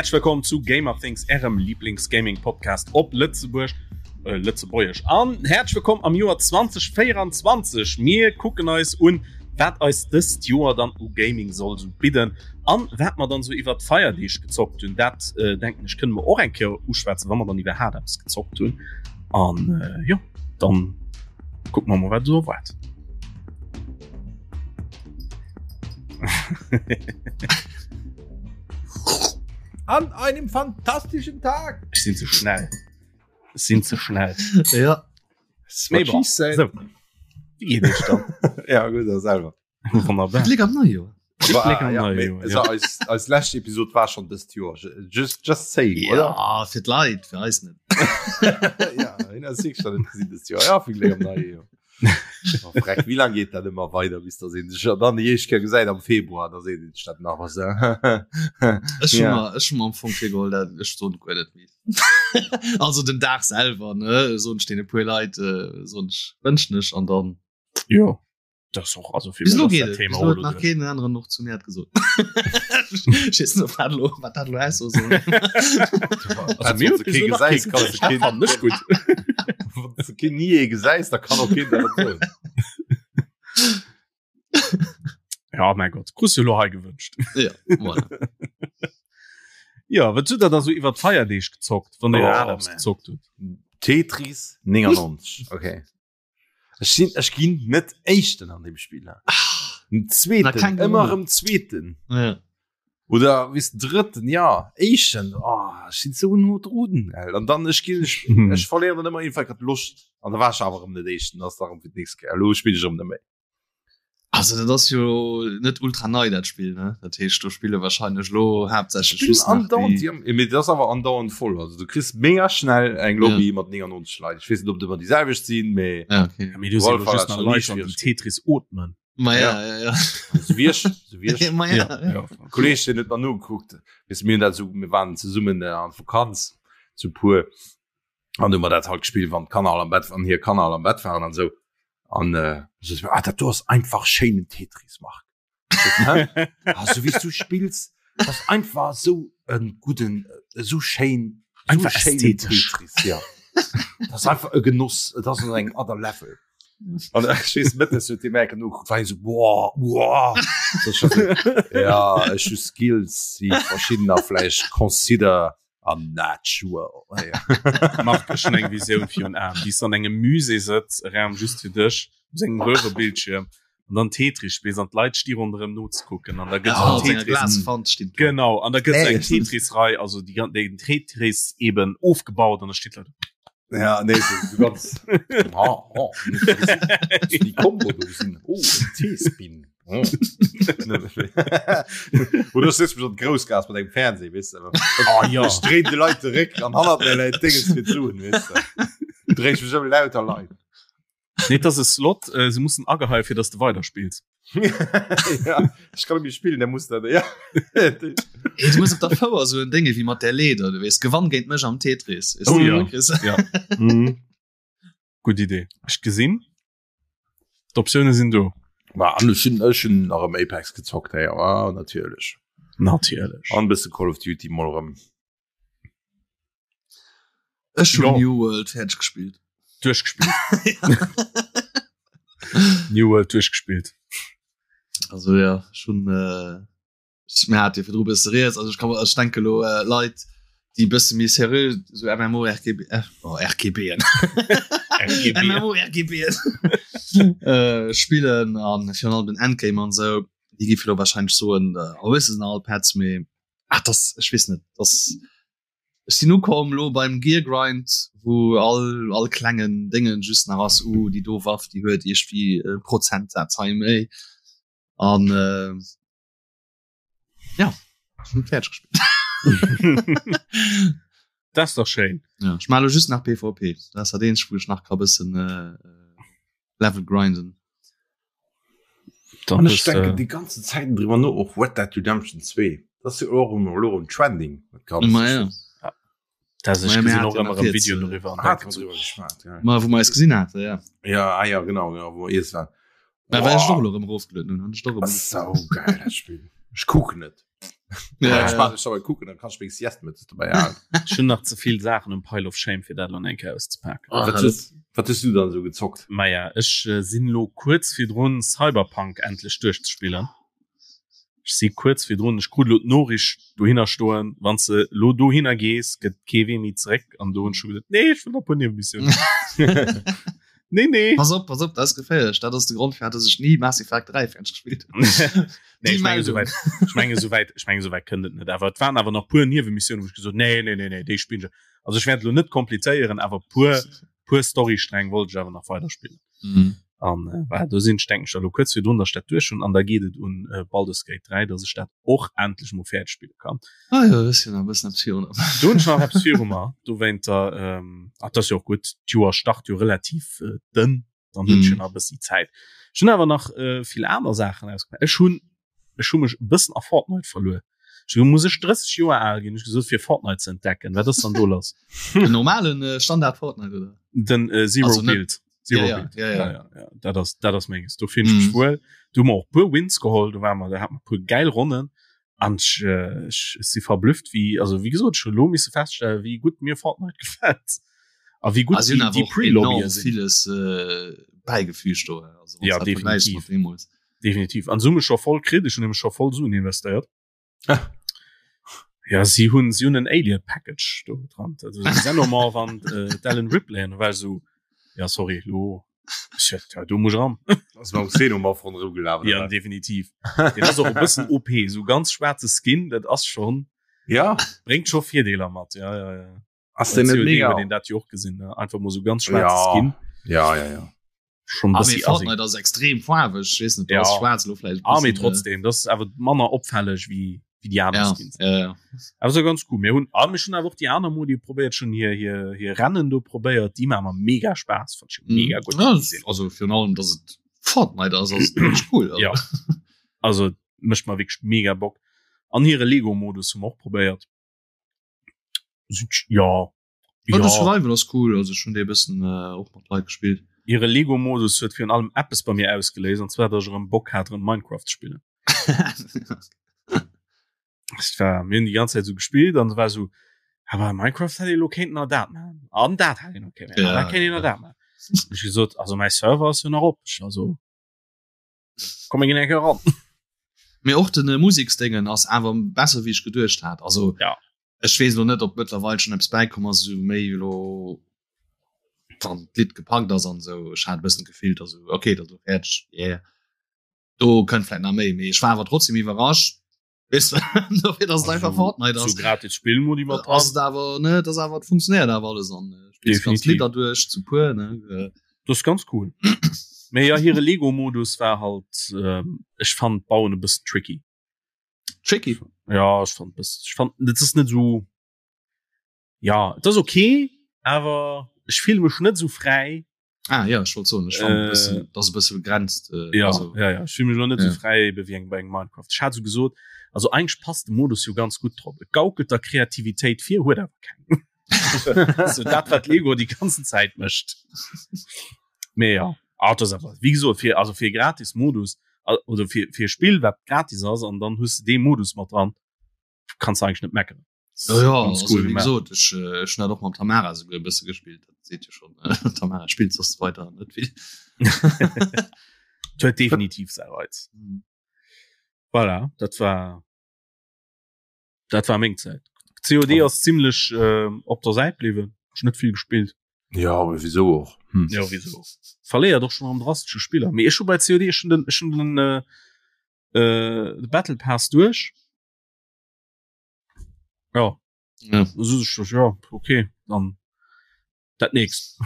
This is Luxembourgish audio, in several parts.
Häerzlech wëllkomm zu Gamer Things, ärem Lieblings-Gaming-Podcast op Lëtzebuerg, äh, Lëtzebuergesch. An häerzlech wëllkomm am Joer 2024. Mir kucken eis un, wat eis dëst Joer dann u Gaming soll sou bidden an wat mer dann sou iwwer d'Feierdeeg gezockt hunn. Dat äh, denken ech kënne mer och eng Kéier uschwätzen, wa mer dann iwwerhaapt eppes gezockt hunn. An äh, jo, dann kucke mer mol, wat esou erwaart. An einem fantastischen Tag. Ech sinn ze schnell. Ech sinn ze schnell. Ja. So. Wie geet iech dann? Ja gut da selber. Wonnerbar. Gléck am neie Joer. War, Gléck am ja, neie Joer, also ja. eis, eis lescht Episode war schon dëst Joer. Just, just saying, oder? Ja, fir d'Leit, fir eis net. ja, hin ass sicher net gesinn dëst Joer. Ja, vill Gléck am neie Joer. Oh, freck, wie lang geht dat immer weiter bis da sinn sech dann déi éischt Kéier gesäit am Februar, da seet een sech dat nach was. Ech hun Ja. mer ech hun mer am Fong virgeholl, dat ech soen guer net méi. Also den Dag selwer ne soen ech deene puer Leit äh, soen ech wënschen ech an dann Jo. Das och also fir Bis elo mech ass geet dat et. Thema Bis elo och huet nach elo keen aneren och zu mir dat gesot. Ech weess net, ob dat elo wat dat elo aussoe soll. Also mir huet bis elo nach gesäis, kee kannst du gesot. keen- Fannen ech gutt. Wann du keen nie ee gesäis, da kann och keen dat soen. Ja, mein Gott, krus du elo hei gewënscht. Ja, voilà. Ja, wat hutt der da so iwwer d'Feierdeeg gezockt, wann dir Oh, iwwerhaapt eppes man. gezockt hutt? Tetris 99. Okay. Ech sinn ech ginn net éischten an dem Spiel. Den Na, zweeten keng ëmmer Ahnung. erëm zweeten Ja. oder wis drëtten ja éischten oh, ech sinn sou no drun an dann ech ginn ech, ech verléieren dann ëmmer iergendwann grad d'Loscht an da war ech awer erëm net éischten ass da erëm fir d'nächst Kéier elo spillen ech erëm net méi. Also dat ass jo net ultra nei dat Spill ne? Dat heescht do spille wahrscheinlech lo haaptsächlech Spill just nach andauernd déi déi, mee dat ass awer andauernd voll. Also du kriss mega schnell eng Lobby mat 99 Leit. Ech weess net ob et ëmmer déi selwecht sinn, mee Ja, okay. Ja, mee du sinn Wolf just war nach schon Leit nie an déi schwierig. Tetris ootmen. Ma ja, ja, ja. sou wéi ech, sou wéi ech. Ma ja, ja. ja. Kolleg den huet mer nogekuckt wis mir hunn dat sou mir waren zesummen äh, an Vakanz zu puer an du mer dat halt gespielt wann d'Kanner all am Bett wann hir Kanner all am Bett waren an sou an äh, so, ah, dat do ass einfach schéinen Tetris Marc Hä? ah, so wéi du spills das ass einfach sou en gudden äh, sou schéin sou Einfach schéinen ästhetesch. Tetris ja das ass einfach e Genoss et ass an engem other level An ech weess mëttes huet dee Merken nogekuckt, war hie sou, boah, boah. So, ech war sou, ja, ech hu Skills, déi verschiddener vläicht consider unnatural. Ja. Marc, ech hunn eng Visioun virun Aen, wéi s du an engem Musée sëtz, e Raum just fir dech, op sengem Röhrebildschierm, an dann Tetris spills an d'Leit sti ronderëm nozekucken an da gëtt Ja, esou mat senger Tetris. Glaswand steet do. Genau, an da gëtt esou eng Echt? Tetris-Rei, also déi gan- den Tetris eben ofgebaut an da steet Leit. Ja, nee, so, so ganz. Ah, oh, die Kombo do sinn. Oh, en T-Spin. Oh. Oder sitzt mich an Groussgas mat engem Fernseh, weißt du. Oh, ja. Ech dréin de Leit de Réck an hannert mir läit Dinges fir d'Suen, weißt du. Dréi ich mech ëm lauter Leit. Nee, das ist Slot, äh, se mussen ageheien, fir dass du weiterspills. ja, ich kann nicht spielen, der muss da, ja. Ey, du muss op der Fouer so en Dinge wie mat der Leder, du weess, gewann géint mech am Tetris. Ist Oh ja. Chris? Ja. Mhm. Gutt Idee. Ech gesinn. D'Optioune sinn do. Ma an ech hunn ech hunn nach ëm Apex gezockt, hey, ah, natierlech. Natierlech. An e bësse Call of Duty mol erëm. Ech hun Ja. New World fäerdeg gespillt. Duerchgespillt. New World duerchgespillt. Also ja, schon äh, ich- mir hat jo virdru bësse rieds, also ich kann ech denke lo äh, Leit, déi bësse méi seriö so MMORGB äh, oh, RGBen RGB. MMORGBen äh, spillen an virun allem den Endgame an sou, déi gi lo wahrscheinlech soen, äh, oh, es sinn all Pets, mee ach das ech weess net, das Ech sinn ukomm lo beim Gear Grind, wou all all klengen Déngen just nach ass, uh déi do Waff déi huet iergendwéi e Prozentsaz hei méi an äh, ja ech hunn fäerdeg gespillt. Dat ass dach schéin. Ja, ech maache lo just nach PvP, dat ass dat eenzegt wou ech nach ka bëssen äh, Level grinden. Dann An ech bist, denken äh, die ganze Zeit drüber no och Red Dead Redemption 2. Das ist ja auch immer lo um Trending. Dat Ganze. Ma ja. das ich Ma ja, gesinn mir och hat ja ëmmer nach e Video jetzt, äh, darüber an Ah, denken hat so, drüber geschwat, ja. Ma wou mer eis gesinn hate ja. Ja, ah, ja, genau, genau, wo ihr es war. Mä well ech och lo erëm erofgelueden hunn, hunn ech doch erëm Das ist sau geil, das Spiel. Ich guck net. Ja, ja. Ich dabei kucken, dann kannst du wenigstens Sieste mit dabei haben. Schon nach ze vill Saachen um Pile of Shame fir dat lo eng Kéier auszepaken. Oh, wat hues, wat hues du dann so gezockt? Maja, ech äh, sinn lo kuerz virdrun Cyberpunk endlech duerchzespillen. Ech si kuerz virdrun, ech krut lo d'Noriicht dohinner stoen, wann s de lo dohinner gees, gëtt kee Wee méi zeréck an do hunn ech scho gesot, nee, ech wëll nach e puer Niewemissionen. Nee, nee. Pass op, pass op, dat ass geféierlech. Dat ass de Grond, firwat dass ech ni Mass Effect 3 fäerdeg gespillt hunn. Nee, ech menge souwäit, ech menge souwäit, ech menge souwäit kënnt et net. Awer et waren awer nach puer Niewemissionen, wou ech gesot nee, nee, nee, nee, déi spillen ech. Also ech wäert elo net komplizéieren, awer puer, puer Storystränг wollt ech awer nach weiderspillen. Mhm. An äh, voilà, do sinn ech, denken ech, da lo kuerz virdrun, dass ech dat duerch hunn. An da geet et un äh, Baldur's Gate 3, dass ech dat och endlech mol fäerdeg spille kann. Ah jo, dat ass jo nach e bëssen eppes virun. Do hunn ech nach eppes viru mer. Dowéinter, ähm, ach, dat ass jo och gutt, d'Joer start jo relativ äh, dënn, dann hunn ech jo Mhm. nach e bëssi Zäit. Ech hunn awer nach äh, vill aner Saachen ausgemaach. Ech hunn ech hu mech e bëssen a Fortnite verluer. Ech hu muss ech 30 Joer al ginn, ech gesot fir Fortnite ze entdecken. Wat ass dann do lass? Den normalen äh, Standard Fortnite oder? Den äh, Zero Also net- Build. Zero Ja, ja, Build. ja, ja. ja, ja, ja. Dat ass dat ass menges. Do finn ech mech Mhm. wuel. Do hu mer och puer Wins geholl, do war mer, da hat mer puer geil Ronnen. An ech, äh, ech, ech si verblüfft wéi also wéi gesot, ech hu lo misse feststellen, wéi gutt mir Fortnite gefält. A wéi gutt Ah, sie hunn déi, awer déi och Pre-Lobbye enorm sinn. villes äh, bäigefügt do. Also, wann Ja, du dat vergläichs definitiv. mat deemools. Definitiv. An se hu mech scho voll kritt, ech hunn nämlech scho voll Suen investéiert. Ja, si hunn si hunn en Alien Package do dran. Also den Xenomorph an äh, d'Ellen Ripley an war so ja sorry lo ja, ja, do muss ich ran. Ass mam Xenomorph ronderëm gelaf oder Ja, wat? definitiv. Den ass och e bëssen OP, so ganz schwaarze Skin, dat ass schon Ja, bréngt scho Virdeeler mat. Ja, ja, ja. ass den net COD mega? huet een dat jo och gesinn, ne? Einfach mol so ganz schwaarze Ja. Skin. Ja, ja, ja. Schon Ah, bëssi mee assi. Fortnite ass extrem faarweg, ich weess net, do Ja. ass schwaarz lo vläicht e Ah, mee bëssen, äh, trotzdem, das ist awer manner opfälleg wéi wéi déi aner Ja, Skins. ja, ja. Awer so ganz cool. Mir hunn ah, mir schon awer och déi aner Modi probéiert schon hier hier hier Rennen do probéiert, déi maache mer mega Spaass, fand ich mega gutt. Ja, das- also virun allem, dass et Fortnite ass, ass wirklich cool. Also. Ja. Also mécht mer wierklech mega Bock. An hire Lego-Modus hu mer och probéiert. Ja. Ja, ja. de Survival ass cool, also ech hunn dee e bëssen äh, och mat Leit gespillt. Hire Lego-Modus huet virun allem eppes bei mir ausgeléist, an zwar, datt ech erëm Bock hat, erëm Minecraft ze spillen. Es war, mir hunn déi ganz Zäit esou gespillt an et war esou, awer Minecraft hätt ee lo kéinten nach dat maachen an dat hätt een nach kéinten maachen, an Ja, dat kéint een nach ja. dat maachen. Ech gesot, also mäi Server ass jo nach op, ech also komm mir ginn eng Kéier eran. Mee och den äh, Museksdéngen ass awer besser wéi ech geduecht hat. Also Ja. ech weess lo net, ob mëttlerweil schon eppes bäikomm ass, esou méi lo wann d'Lidd gepackt ass an esou. Ech hat e bëssen d'Gefill, dass esou okay, dat ass lo fäerdeg, yeah. Do kënnt vläit nach méi, mee ech war awer trotzdem iwwerrascht, weess de, dofir dass et einfach Fortnite So ass. gratis Spillmodi mat Ass dran. et awer ne, dat ass awer et funktionéiert awer alles an äh, spills ganz Definitiv. Lidder duerch zu puer ne. Äh, Das ist ganz cool. Mee ja, hire Lego-Modus war halt, ähm, ech fand d'Bauen e bëssen tricky. Tricky. Ja, ech fand bëssen, ech fand, dat ass net sou, ja, et ass okay, awer ech fille mech net sou fräi. Ah ja, ech wollt soen, ech fand Äh, e bëssen, dat ass e bësse begrenzt. Äh, Ja, also, ja, ja, ech fille mech lo net Ja. sou fräi ebe wéi eng bei engem Minecraft. Ech hat sou gesot, also eigentlech passt de Modus jo ganz gutt drop. Et gaukelt der Kreativitéit vir, huet awer keng. so dat wat Lego die ganzen Zäit mécht. Mee ja, ah, dat ass awer, wéi gesot, fir, also fir gratis Modus, al- oder fir, fir e Spill, wat gratis ass, an dann hues de dee Modus mat dran, kannst du eigentlich net meckeren. Ja, ja Ganz also, cool wie gemacht. gesot, ech, äh, ech hun dat och mam Tamara souguer e bësse gespillt. Dat seet jo schon, äh, Tamara spillt soss weiter net vill. Et huet definitiv säi Reiz. Voilà, dat war dat war meng Zäit. COD ass zimmlech äh, op der Säit bliwwen. Ech net vill gespillt. Ja, aber wieso och? Hm. Ja, wieso? Verléiert och schon am drastesche Spiller. Mee ech hu bei COD ech hun den, ech hun den äh, äh, de Battle Pass duerch. Ja. Ja. So, so, ja, okay, dann dat nächst.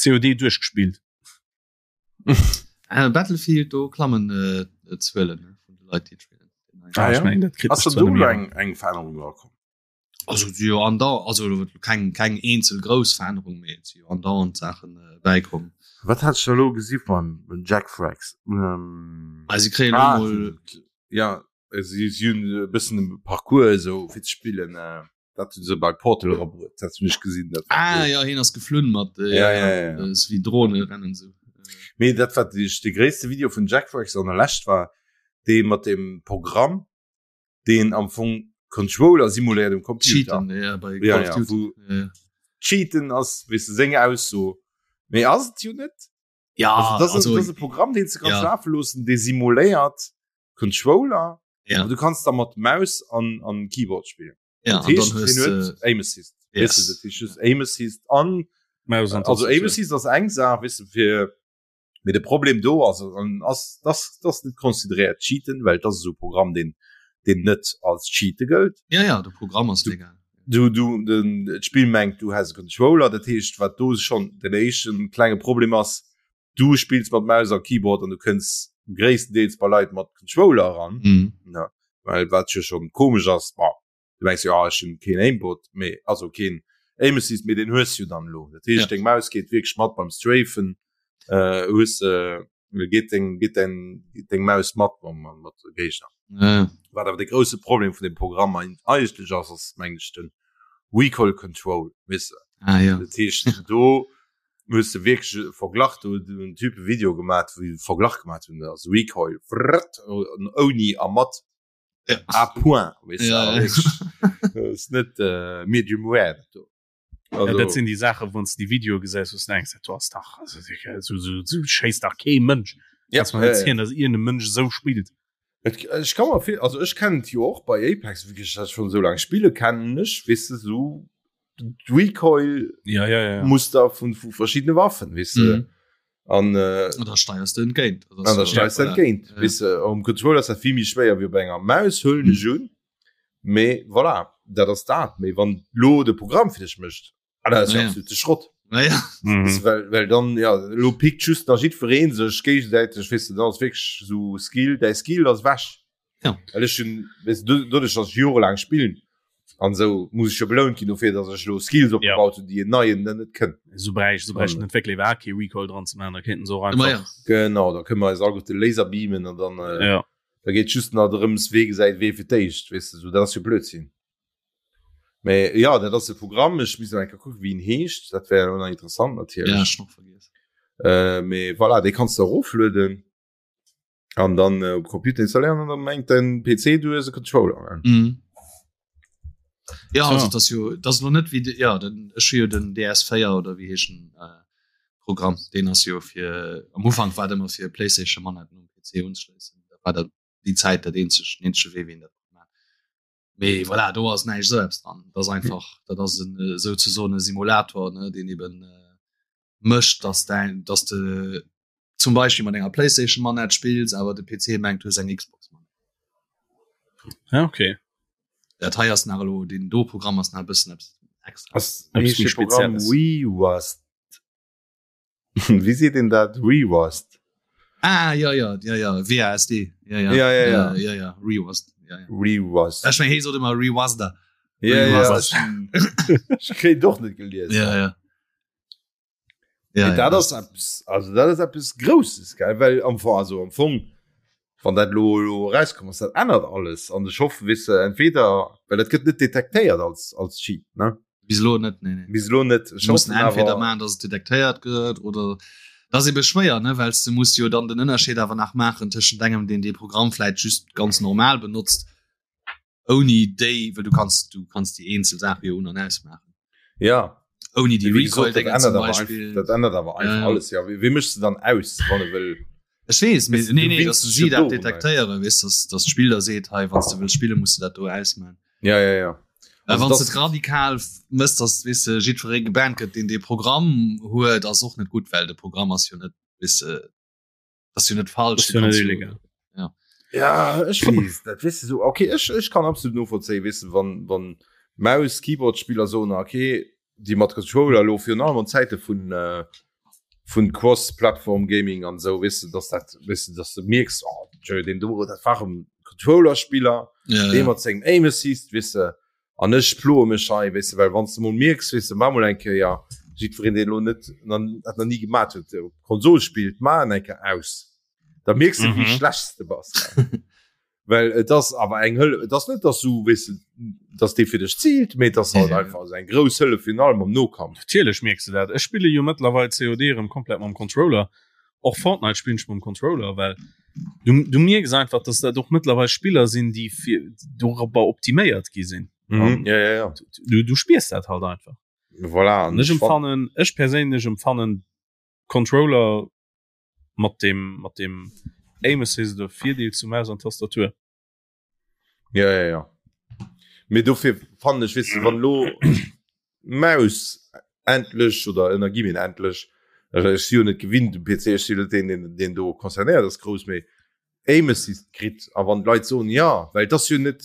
COD duerchgespielt. Äh, Battlefield do klammen äh, Zuelen ne, vun de Leit déi et spillen. Ah, ich ja? mein, dat kritt Ass mech da zwar do net méi eng eng Verännerung erakomm? Also si jo andau also keng keng eenzel grouss Verännerung méi et si jo andauernd Saachen äh, bäikomm. Wat hat ech da lo gesi beim Jack Frags? Ähm, Ah, si kréien elo ah, mol ja, si si hunn e bëssen e Parcours esou fir ze spillen. Äh, dat hunn se bei Portal erabruet, dat hunn ech gesinn. Dat war Ah cool. ja, hien ass geflunn mat äh, Ja, ja, ja. äh, sou wéi Drone rennen sou. Mee dat wat ech de gréisste Video vun Jack Frags an der Lescht war, dee mat dem Programm. Deen am Fong Controller simuléiert um Computer. Cheaten, ja, bei ja, Call of ja, Duty. Wo ja, ja. Cheaten ass weess de seng Ausso, mee ass et jo net. Ja, also, das, also, das ass e Programm, deen s de kanns ja. lafe loossen, dee simuléiert Controller. Ja. Aber du kanns da mat Maus an, an Keyboard spillen. Ja, Dat an dann heescht, hues hien huet de Aim Assist. Yes. Weess de, dat heescht just Aim Assist an Maus an also Aim Tastatur. Assist ass eng Saach, weess de, fir Mee de Problem do ass an ass dass dass net consideréiert Cheaten, well et ass esou e Programm deen deen net als Cheate gëllt. Ja ja, de Programm ass legal. Du du den d'Spill mengt du häss e Controller, dat heescht wat do schonn den éischten klenge Problem ass, du spills mat Maus a Keyboard an du kënns gréisstendeels bei Leit mat Controller eran, Mhm. ne, well wat jo schonn komesch ass, bon du mengs jo ah, ech hunn keen Aimbot, mee also keen Aim Assist, mee deen hues jo dann elo. Dat heescht Ja. deng Maus geet wierklech mat beim Strafen, äh, hues äh, geet deng geet deng geet deng Maus mat mam mam mat de Géigner. Ja. Wat awer de grousse Problem vun dem Programm ein- eigentlech ass, ass meng ech den Recoil Control, weess de. Ah ja. Dat heescht do hues de wierklech e Verglach, do huet en Typ e Video gemaat, wou e Verglach gemaat hunn, also Recoil vrrrt, ouni a mat. Ja. À point, weißt Ja, du, ja. wirklich. ist net äh, medium rare dat do. Ja, dat sinn déi Saachen, wann s de déi Videoe gesäis, wou s de denkst, dat do ass dach, also, so, so, so schéisst dach kee Mënsch. Ja, Kannst mer ja, net ja. zielen, dass iergend e Mënsch esou spillt. Et, ech kann mer vill, also ech kennen et jo och bei Apex, wéi ech dat schon esou laang spille kennen ech, weess de, sou d'Recoil Ja, ja, ja. Muster vun vu verschiddene Waffen, weess de. Mhm. An äh, An da steiers du entgéint. an da steis du entgéint. Ja. Weess de, um Controller ass dat vill méi schwéier wéi op enger Maus, huelen ech un. Mee voilà, dat ass dat. Mee wann lo de Programm fir dech mécht, ah, dat ass jo Ja, ja. absolute Schrott. Naja. Mhm. Weess de, well, well dann, ja, lo pickt just nach jiddweree sech géigesäiteg, weess de, dann ass wierklech sou Skill, däi Skill ass ewech. Ja. Well ech hunn, weess de, doduerch, datt ech jorelaang spillen an esou, muss ech jo belount ginn dofir, datt ech elo Skills opgebaut hunn, déi en neien dann net kënnt. Esou bräicht, esou bräicht An- den Entwéckler iwwerhaapt kee Recoil dran ze maachen, da kéinten se och Ma einfach. ja. Genau, da kënne mer eis alleguerte Laser beamen an dann, äh, Ja. da geet just nach drëms, wee gesäit wee fir d'éischt, weess de, esou, dat ass jo Blödsinn. Mee ja, dat ass e Programm, ech misst nach eng Kéier kucken, wéi en heescht, dat wär elo nach interessant Ja, natierlech. ech nach vergiess. Äh, mee voilà, dee kanns de eroflueden. An dann äh, op Computer installéieren an dann mengt den PC du hues e Controller. Ne? Mhm. Ja, So. also das jo das noch net wie de, ja den ech hu jo den DS4 oder wie heeschen äh, Programm den ass jo fir am Ufank war dat ëmmer fir PlayStation Manetten um PC unschléissen dat war dat déi Zäit dat eenzeg den eenzege Wee wéi een dat konnt man mee voilà do ass näischt esou eppes dran dat ass einfach dat ass en äh, souzesoen e Simulator ne deen eben äh, mécht dass dein dass de zum Beispiel mat enger Playstation Manette spills awer de PC mengt du hues eng Xbox Manette. Ja, okay. Dat hei ass nach elo den do Programm ass nach e bëssen eppes extra. Ass Eppes heescht méi de Programm Spezielles. WeWast? Wéi seet een dat? WeWast? Ah ja ja ja ja WASD ja ja Ja, ja, ja. ja ja ReWast ja ja. ReWast. Ech meng hee sot ëmmer ReWasda. Ja, ja, ReWasda. ech kréien och net gelies. Ja ja. Ja, ja, dat ass eppes, also dat ass eppes Grousses, gell? Well am Fong, also am Fong, wann dat lo, lo rauskomm ass, dat ännert alles. An ech hoffen, weess de, entweder, well dat gëtt net detektéiert als, als Cheat, ne? Bis elo net, nee, nee. Bis elo net. Ech mussen hoffen entweder awer, maachen, dass et detektéiert gëtt oder dat ass ebe schwéier, ne? Well s de muss jo dann den Ënnerscheed awer nach maachen tëschent engem, deen dee Programm vläit just ganz normal benotzt, ouni déi, well du kanns, du kanns déi eenzel Saache jo un an ausmaachen. Ja. Ouni déi Wéi gesot, dat Recoil-Déngen zum ännert awer einfach, Beispill. dat ännert awer einfach Ja, ja. alles. Ja, wéi, wéi méchs de dann aus, wann e wëll? Ech weess, mee Weess de, nee, du nee, winns dass dech si jo dat dorunner. detektéieren, weess, dass, dass d'Spill da seet, hei, wann s de wëlls spillen, muss de dat do ausmaachen. Ja, ja, ja. Well Also wann s das, de et radikal mëss, dass, weess de, jiddweree gebannt gëtt, deen dee Programm huet, ass och net gutt, well de Programm ass jo net, weess de, das jo net falsch Das jo net illegal. Ja. Ja, ech weess dat weess de so okay ech ech kann absolut novollzéien weess de wann wann Maus Keyboard Spiller soen okay déi mat Controller lo virun allem an Zäite vun äh, vun Cross Plattform Gaming an sou weess de dass dat weess de dass de mierks oh tjö deen do dat war en Controller Spiller Ja, dee ja. mat sengem Aim Assist weess de An ech ploe mech hei, weess de, well wann s de mol mierks, weess de, maach mol eng Kéier, jiddwereen, deen elo net, dat nach ni gemat huet, op Konsol spillt, maach en eng Kéier aus, da mierks de, wéi Mhm. schlecht s de bass. Well et ass awer eng Hëllef, et ass net, dass du, weess de, dass dee fir dech ziilt, mee et ass halt Ja, ja. einfach esou eng grouss Hëllef, virun allem am Nokampf. Natierlech mierks de dat. Ech spille jo mëttlerweil COD erëm komplett mam Controller. Och Fortnite spillen ech mam Controller, well du, du mierks einfach, dass dat och mëttlerweil Spiller sinn, déi fir dorobber optiméiert gi sinn. Mhm. Ja, ja, ja. Du, du spiers dat halt einfach. Voilà. An ech empfannen, ech perséinlech empfannen Controller mat dem, mat dem Aim Assist oder Virdeel zu Maus an Tastatur. Ja, ja, ja. Mee dofir fannen ech, weess de, wann elo d'Maus endlech oder ënner gi mir endlech, ech si jo net gewinnt um PC, ech si net deen, deen, deen do concernéiert ass grouss, mee Aim Assist kritt a wann d'Leit soen, jo, well et ass jo net,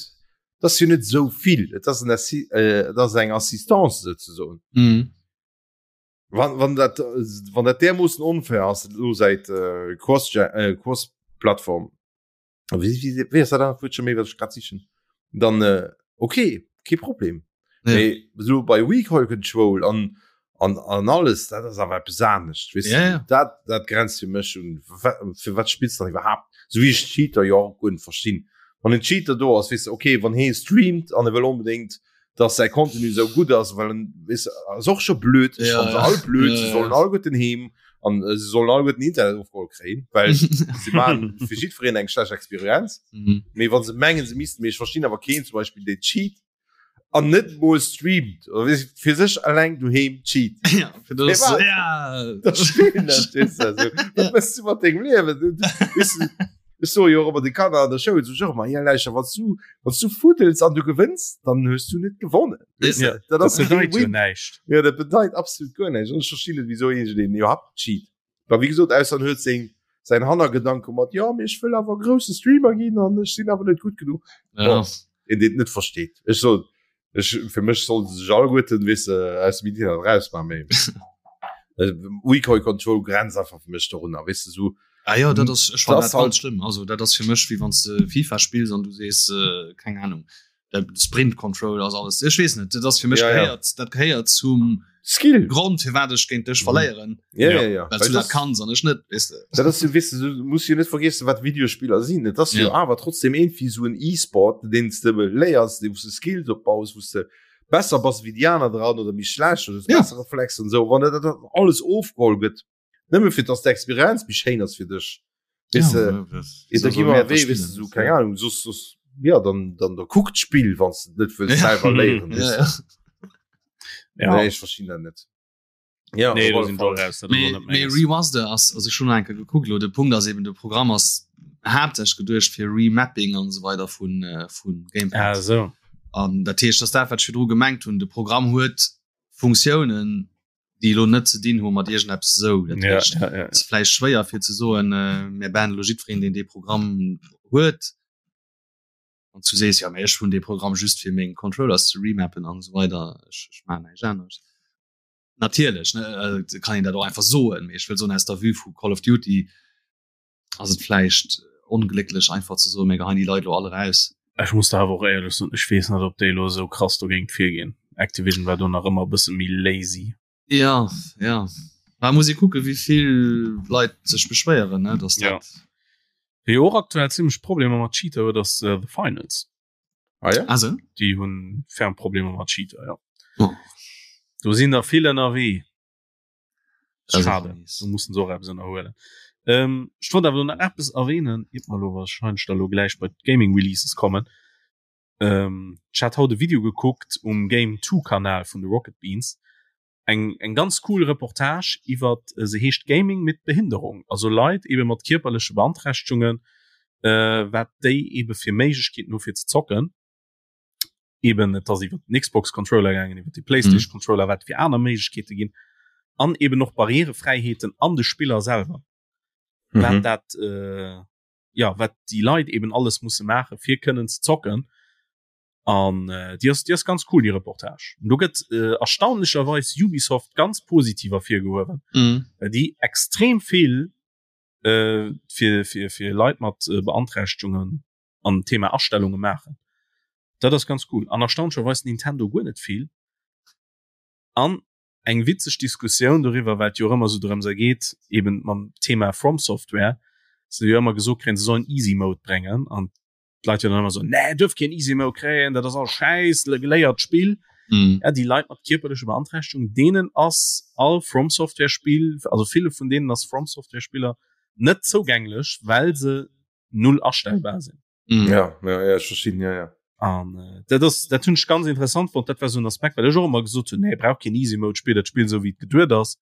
et ass jo net esou vill, et ass en Assi-, et ass eng Assistance souzesoen. Wann, wann dat, wann dat därmoossen onfair ass elo säit Cross-, Cross-Plattform, wie, wie, wie ass dat anert Wuert scho méi, wat ech grad sichen? Dann äh, okay, kee Problem. Ja. Mee so bei Recoil Control an, an, an alles, dat ass awer eppes anescht, weess Ja, du? ja. Dat, dat grenzt fir mech un, fir wat spills du dann iwwerhaapt? Sou wéi ech Cheater jo och guer net verstinn. Wann en Cheater do ass, weess du, okay, wann hee streamt an e wëll onbedéngt dass säi Contenu sou gutt ass, well en weess ass och scho blöd, ech Ja, fanne se ja. all blöd, Ja, se ja. sollen alleguerten heem an äh, se sollen alleguerten Internet ofgeholl kréien, well se maachen fir jiddwereen eng schlecht Experienz. Mhm. Mee wann se mengen se missten, mee ech verstinn awer keen zum Beispill deen cheat an net mol streamt oder weess fir sech alleng doheem cheat. Ja, fir das, Hey, wat? ja. Dat spillen ech, weess du, also, wat mëss du mat dengem Liewen? Du, du, weess du, Ech soe jo och ëmmer de Kanner an der Schoul, sot ech och ëmmer, ja lauschter, wann s du, wann s du fuddels an du gewënns, dann hues du net gewonnen. Weess Ja, de? Dat dat ass kee bedeit jo Win. näischt. Ja, dat bedeit absolut guer näischt. An ech verstinn net, wisou iergendeen iwwerhaapt cheat. Well wéi gesot, ausser en huet seng, säin Hannergedanke mat, jo, mee ech wëll awer grousse Streamer ginn an ech sinn awer net gutt genuch. Ja. Bon, een, deen et net versteet. Ech soen, Ech, fir mech sollte sech alleguerten, weess de, aus dem Internet rausmachen, mee Recoil Control grenzt einfach fir mech dorunner, weess de, sou. Ah ja, dat ass, ech fannen Das dat halt ganz schlëmm. Also dat ass fir mech wéi wann s de FIFA spills an du sees, äh, keng Ahnung, de Sprint Control ass alles. Ech weess net, dat ass fir mech Ja, ja. gehéiert, dat gehéiert zum Skill. Grond firwat ech géint dech verléieren, Ja, ja, ja. well Well du dat das, kanns an ech net, weess de. dat ass jo, weess de, du muss jo net vergiessen, wat Videospiller sinn. Et ass jo Ja. awer trotzdem iergendwéi sou en E-Sport, deen s de léiers, wou s de Skills opbaus, wou s de besser bass wéi déi aner dran oder méi schlecht oder hues Ja. besser Reflexer an esou. Wann dat dat alles ofgeholl gëtt, nëmme fir dass d'Experienz méi schéin ass fir dech, weess de, Ja, da gi mer wéi, weess de, sou, keng Ahnung, soss, soss, ja, dann, dann da kuck d'Spill, wann s de et net wëlls Ja. selwer léieren, weess Ja, de. ja. Ja. Nee, ech verstinn dat net. Ja, Nee, op do alle sinn Fall. ech och raus, dat ass och Mee, net mee menges. Remaster ass, also ech hunn nach eng Kéier gekuckt elo, de Punkt ass eben, de Programm ass haaptsächlech geduecht fir Remapping an esou weider vun, vun Gamepad. Ah, esou. An dat heescht, dass dat wat ech virdru gemengt hunn, de Programm huet Funktiounen, déi elo net ze dinn hu mat iergendeppes esou. Dat Ja, heescht, ja, ja. et ass vläicht schwéier fir ze soen, mir bannen elo jiddwereen, deen dee Programm huet. Wann s du sees, jo, mee ech hunn dee Programm just fir meng Controllers ze remappen an esou weider, ech, ech maachen näischt anescht. Natierlech, ne, kann een dat och einfach soen, mee ech wëll soen, aus der Vue vu Call of Duty ass et vläicht onglécklech einfach ze soen, mir geheien déi Leit elo all eraus. Ech muss der awer och éierlech soen, ech weess net, ob déi elo esou krass dogéint virginn. Activision war do nach ëmmer e bësse méi lazy. Ja, ja. Mä muss ee kucken, wéi vill Leit sech beschwéieren, ne, dass Ja. dat. Wie jo och aktuell zimmlech Problemer mat Cheater huet, ass The Finals. Ah ja? Ah sou? Déi hunn ferm Problemer mat Cheater, ja. Oh. Do sinn der vill ënnerwee. Das ist Schade, mies. do mussen se och eppes ënnerhuelen. Ähm, ech wollt awer nach eppes erwähnen, iert mer elo wahrscheinlech da lo gläich bei d'Gaming Releases kommen. Ähm, ech hat haut e Video gekuckt um Game 2 Kanal vun de Rocket Beans. Eng, eng ganz cool Reportage iwwert, se heescht Gaming mit Behinderung, also Leit ebe mat kierperleche Beanträchtegungen, äh, wat déi ebe fir Méiglechkeeten hu fir ze zocken. Eben et ass iwwer den Xbox Controller gaangen, iwwer de PlayStation Controller, wat fir aner Méiglechkeete ginn an eben och Barrierefräiheeten an de Spiller selwer. Mhm. Wat dat äh, ja wat déi Leit eben alles musse maache fir kënnen ze zocken. An äh, déi ass, déi ass ganz cool déi Reportage. Und do gëtt äh, erstaunlecherweis Ubisoft ganz positiv ervirgehuewen, Mhm. well déi extrem vill äh, fir, fir, fir Leit mat äh, Beanträchtegungen an Thema Astellunge maachen. Dat ass ganz cool. An erstaunlecherweis Nintendo guer net vill. An eng witzeg Diskussioun doriwwer, well et jo och ëmmer esou drëms ergeet, eben mam Thema From Software, se jo ëmmer gesot kréien, se sollen Easy Mode bréngen an d'Leit jo dann ëmmer esou, nee, duerf keen Easy Mode kréien, dat ass all Schäiss, geléiert d'Spill. Mm. Ja, déi Leit mat kierperleche Beanträchtegung, deenen ass all From Software Spill, also ville vun deenen ass From Software Spiller. net zougänglech, well se null astellbar sinn. Mm. Ja, ja, ja, ech verstinn, ja, ja. An äh, dat ass dat hunn ech ganz interessant fonnt, dat war sou en Aspekt, well ech och ëmmer gesot hunn, nee, brauch keen Easy Mode, spill dat Spill sou wéi et geduet ass.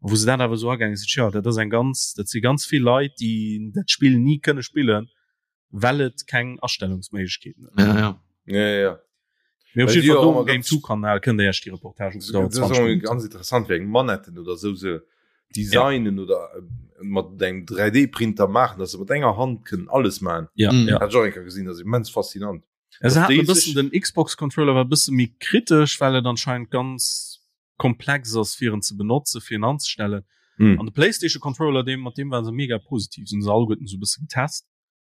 A wou se dat awer sou agaange sinn, tja, dat ass eng ganz, dat si ganz vill Leit, déi dat Spill ni kënne spillen, well et keng Astellungsméiglechkeeten huet. Ja, ja. Ja, ja, ja. Mee op jidde Fall do um Game 2 Kanal kënnt der Iech déi Reportage ukucken, dauert 20 Minutten. Ganz interessant wéi eng Manetten oder sou se designen ja. oder äh, mat engem 3D-Printer maachen, dass se mat enger Hand kënnen alles maachen. Ja, mm. ja. Hat ech och eng Kéier gesinn, dat ass immens faszinant. Ja, se haten e bëssen den Xbox Controller war e bësse méi kritesch, well et anscheinend ganz komplex ass fir en ze benotze fir en anzestellen. Mm. An de PlayStation Controller deem mat deem waren se mega positiv, sinn se alleguerten sou e bësse getest.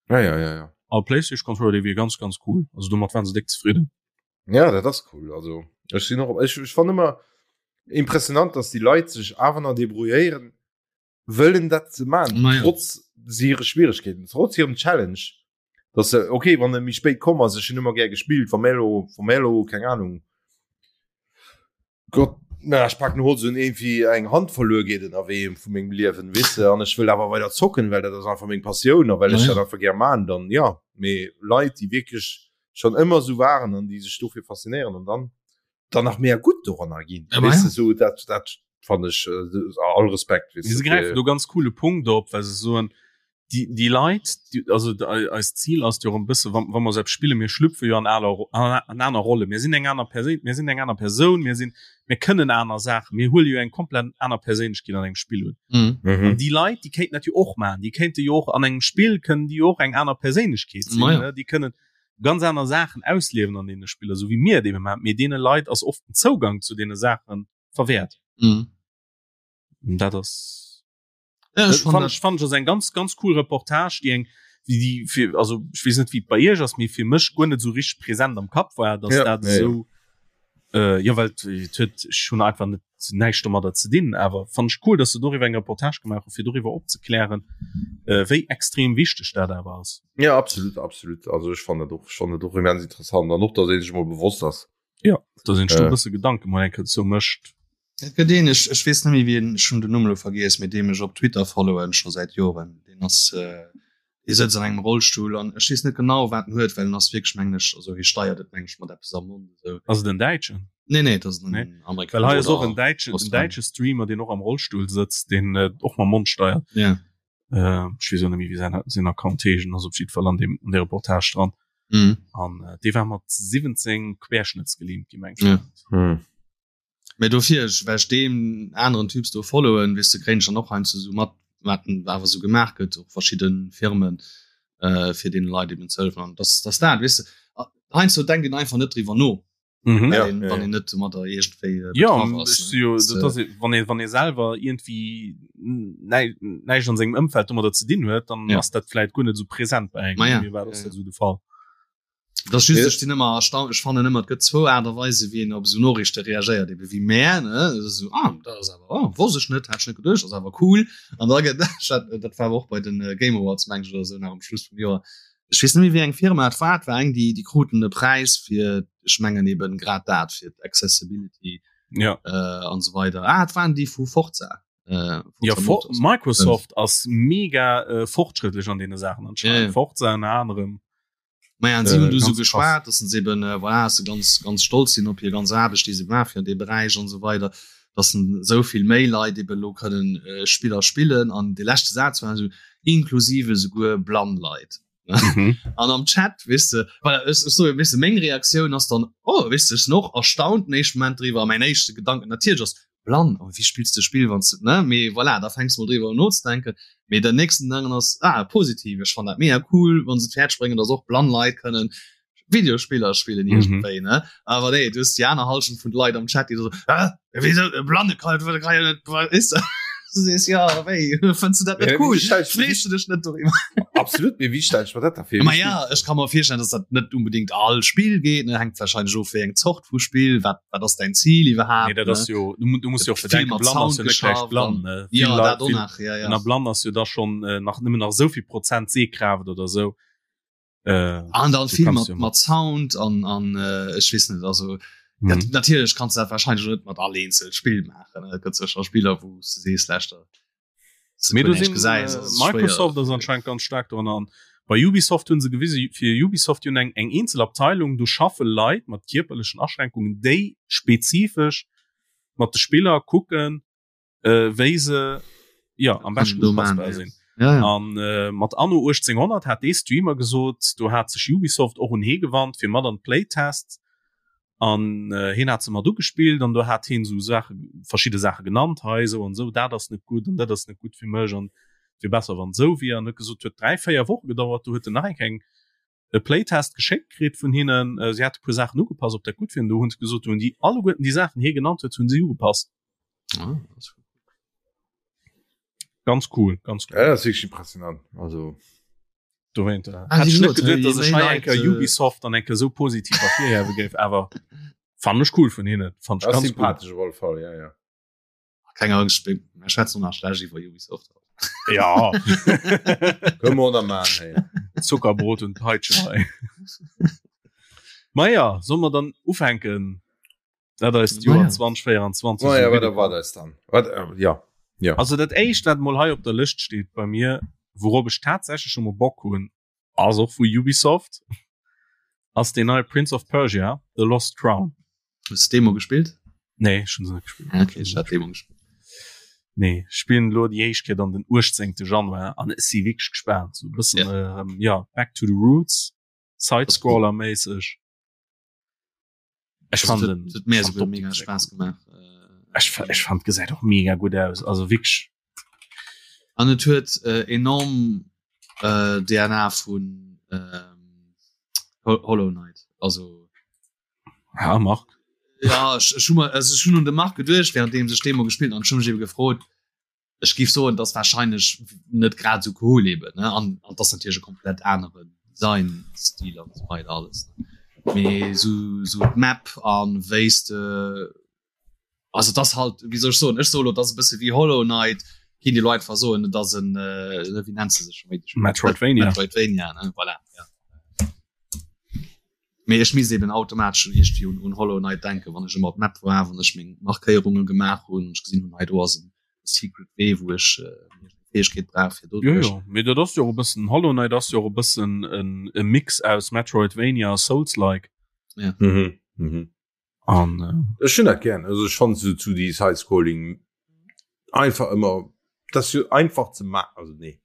Ja, ja, ja, ja. A PlayStation Controller dee wier ganz ganz cool. Also domat waren se déck zefridden. Ja, dat ass cool. Also ech sinn och ech, ech fann ëmmer impressionant, dass déi Leit sech awer nach debrouilléieren wëllen dat ze man Ma ja. trotz hire Schwieregkeeten, trotz hirem Challenge. Dass se okay, wann e méi spéit komm ass, ech hunn ëmmer gär gespillt, wa mir elo, wa mir elo, keng Ahnung, Gott, na, ech packen Holz un irgendwie eng Hand verluer geet ënnerwee vu mengem Liewen, weess de, an ech wëll awer weider zocken, well dat ass einfach meng Passioun a well ech dat einfach gär man, dann ja. Mee Leit, déi wierklech schonn ëmmer esou waren an déi sech dofir faszinéieren an dann dann nach mega gutt doranner ginn, weess de, esou dat dat fannen ech all Respekt, weess de. Si gräifen do ganz coole Punkt op, well se soen, déi, déi Leit, déi, also eist Zil ass jo och e bësse, wa, wa mer esou eppes spillen, mir schlüpfe jo an aler, an aner Rolle. Mir sinn eng aner Perséin, mir sinn eng aner Persoun, mir sinn, mir kënnen aner Saachen, mir huele jo eng komplett aner Perséinlechkeet an engem Spill un. Mhm. Mhm. An déi Leit, déi kéinten dat jo och maachen. Déi kéinte jo och an engem Spill kënnen déi jo och eng aner Perséinlechkeet sinn, Ma ja. ne? Déi kënnen ganz aner Saachen ausliewen an deene Spiller, esou wéi mir et ebe maachen. Mee deene Leit ass oft den Zougang zu deene Saache verwäert. Mhm. Dat ass. Ja, Das ech fand fand dat, ich, fand ich ass eng ganz ganz cool Reportage, déi eng déi déi fir also ich weess net wéi et bei iech ass, mee fir mech guer net sou richteg präsent am Kapp war, dass Ja, dat ja, ja. esou äh, jo well et et huet ech hunn einfach net näischt domadder ze dinn, awer fand ich cool, dass se doriwwer eng Reportage gemaach hu fir doriwwer opzeklären, äh, wéi extrem wichteg dat awer ass. Ja, absolut, absolut. Also ech fannen dat och, ech fannen dat och immens interessant an och, dass ee sech mol bewosst ass. Ja, dass een sech do Äh. e bësse Gedanke mol eng Kéier dozou mécht. Et gëtt een, ech, ech weess net méi wien, ech hunn den Numm elo vergiess, mee deem ech op Twitter followen scho säit Joren, deen ass, dee sëtzt an engem Rollstull an ech weess net genau wat en huet, well en ass wierklech mengen ech, also hie steiert et mengen ech mat eppes am Mond esou. Ass et en Däitschen? Nee, nee, et ass en Nee. Amerikaner Well hei ass och oder en Däitschen, en Australier. däitsche Streamer, deen och am Rollstull sëtzt, deen och mam Mond steiert. Ja. Äh, ech weess och net méi wéi säin, säin Account heescht, en ass op jiddwer Fall an deem, an där Reportage dran. Mhm. An dee war mat 17 querschnëttsgelähmt gi mengen ech. Ja. Mhm. Mee dofir, ech, well ech deem aneren Typs do followen, weess de, kréien ech dann och heiansdo sou mat, wat awer sou gemaach gëtt, och verschidde Firmen, äh, fir deene Leit eben ze hëllefen. An dass, dass dat, weess de, heiansdo denkt een einfach net driwwer no, Mhm. well Ja, een, ja, wann ja. een net domadder iergendwéi äh, Ja, betraff ass. ech Ne? si jo, Dass, dat äh, ass, wann ee, wann ee selwer iergendwéi näi, näischt an sengem Ëmfeld domadder ze dinn huet, dann Ja. ass dat vläit guer net sou present bei engem. Ma ja, Bei mir war ja, dat ja. sou de Fall. Dat ass just, Ja. ech sinn ëmmer erstaunt, ech fannen ëmmer, et gëtt zwou Aart a Weise wéi een op esou Noriichte reagéiert, ebe wéi mär, ne, dat ass esou, ah, dat ass awer, oh, wosst ech net, hat ech net geduecht, ass awer cool. An da gëtt, dat, dat war awer och bei den Game Awards, meng ech, oder esou nach um Schluss vum Joer, ech weess net méi wéi eng Firma et war, et war eng, déi, déi kruten e Präis fir, ech mengen eben grad dat, fir d'Accessibility Ja. an esou weider. Ah, et waren déi vu Forza, äh, Ja, Forza For Motorsport. Microsoft ass mega äh, fortschrëttlech an deene Saachen anscheinend. Ja, ja. Forza ënner anerem. Maja, an si hunn Äh, du sou ganz krass. geschwat, dass se eben äh, voilà, dass se ganz ganz stolz sinn op hir ganz Aarbecht, déi se gemaach fir an deem Beräich an esou weider, dass en esou vill méi Leit eben elo kënnen äh, Spiller spillen. An de leschte Saz war esou, inklusive esouguer blann Leit. Mhm. An am Chat, weess de, voilà, ech, ech soe, weess de, meng Reaktioun ass dann, oh, weess de, ech sinn och erstaunt den éischte Moment driwwer a mäin éischte Gedanken natierlech ass, blann, oh, wéi spills de Spill, wann s de, ne, mee voilà, da fänks de mol driwwer un nozedenken. Mee den nächsten Gedanken ass, ah, positiv, ech fannen dat mega cool, wann se et fäerdeg bréngen, dass och blann Leit kënnen Videospiller spillen Mhm. iergendwéi, ne. Awer nee, du hues déi aner Hallschent vun de Leit am Chat, déi da sou, hä, wéisou, e Blanne kann, kann jo net, weess de. Du sees, ja, wéi, fënns du dat net Ja, cool? wéi stell ich- Frees du dech net doriwwer? Absolut, mee wéi stell ech mer dat da vir? Ma ja, ech ka mer virstellen, dass dat net unbedingt all Spill geet, ne, hänkt wahrscheinlech of wéi eng Zort vu Spill, wat wat ass däin Zil iwwerhaapt, Nee, dat ne? ass jo, du, du muss jo och Vill bedenken, mat blann ass Sound jo net gläich geschafft blann, an ne? Vill ja, Leit, dat och vill, nach, ja, ja. na blann ass jo da schon äh, nach nëmmen nach souvill Prozent Sehkraaft oder sou. Äh, An dann du vill kanns mat jo mat Sound an an äh, ech weess net, also Mhm. dat, natierlech kanns du dat wahrscheinlech net mat all eenzel Spill maachen, ne? Et gëtt sécher Spiller, wou s du sees, leschter. Mee do sinn Microsoft ass anscheinend ganz staark dran an bei Ubisoft hunn se gewise fir Ubisoft hunn eng eng eenzel Abteilung do schaffe Leit mat kierperlechen Aschränkungen déi spezifesch mat de Spiller kucken äh, wéi se ja am beschten upassbar sinn. Ja, ja. An äh, mat Anno 1800 hat dee Streamer gesot, do hat sech Ubisoft och un hee gewannt fir mat an d'Playtests an äh, hien hat se mat ugespillt an do hat hien sou Saache verschidde Saache genannt, hei esou an esou, dat ass net gutt an dat ass net gutt fir mech an wier besser wann esou wier an huet gesot huet 3, 4 Woche gedauert, do huet en nach eng eng e Playtest geschéckt kritt vun hinnen, äh, si hate puer Saachen ugepasst, ob dat gutt wier an do hunn se gesot, do hunn déi alleguerten déi Saachen hie genannt huet, hunn si ugepasst. Ah, ganz cool, ganz cool. Ja, dat ass wierklech impressionant. Also Dowéint, äh, ah, hätt ech net geduet, dass ech hei eng Kéier äh, Ubisoft dann eng Kéier sou positiv ervirhiewe géif, awer fand ech cool vun hinnen. Fand ech ganz sympathesch op alle Fall, ja, ja. Keng Angst, mir schwätzen nach schlecht iwwer Ubisoft. Ja. Kënne mer och nach maachen, hey. Zuckerbrot und Peitsche hei. Ma ja, solle mer dann ufänken? Dat eist Joer 2024. Oh ja, wat erwaart eis dann? Wat, äh, ja. Ja. Also dat éischt wat mol hei op der Lëscht steet bei mir, wourop ech tatsächlech scho mol Bock hunn, ass och vu Ubisoft, ass deen neie Prince of Persia, The Lost Crown. Hues de d'Demo gespillt? Nee, ech hunn se net gespillt. Ah, okay, ech hat d'Demo gespillt. Nee, ech spillen elo déi éischt Kéier dann den 18. Januar an ech si wierklech gespaant. Sou e bëssen, ja. Ähm, ja, back to the roots, Side-Scroller-méisseg. Ech fand den huet mir souguer mega Spaass gemaach. Ech, ech fand gesäit och mega gutt aus also wierklech. An et huet äh, enorm äh, DNA vun ähm, Hollow Knight also ja, Marc. Ja ech, ech, hu also, ech hunn un de Marc geduecht während sech Demo gespillt an schon mech eben gefrot ech géif soen, dass wahrscheinlech net grad esou cool eben ne an an dass natierlech e komplett aneren Designstil an esou weider alles ne mee sou sou d'Map an wéis de also dass halt wéi soll ech soen ech soe lo dass e bësse wéi Hollow Knight kinnt ee lo einfach soen et ass en wéi nennt se sech scho méi Metroidvania Metroidvania ne voilà ja. Mee ech misst eben automatesch schon iergendwéi un, un Hollow Knight denken, wann ech ëmmer op d'Map war, wann ech meng Markéierunge gemaach hunn, ech gesinn hunn, hei do ass en Secret Wee, wou ech äh, Fäegkeet brauch fir do. Jo, jo, mee dat ass jo och e bëssen, Hollow Knight ass jo och e bëssen en, e Mix aus Metroidvania a Souls-like. Ja. Mhm, mhm. An äh, Ech hunn dat gern. Also ech fand so zu die Side-Scrolling einfach ëmmer, dat ass jo einfach ze ma also nee.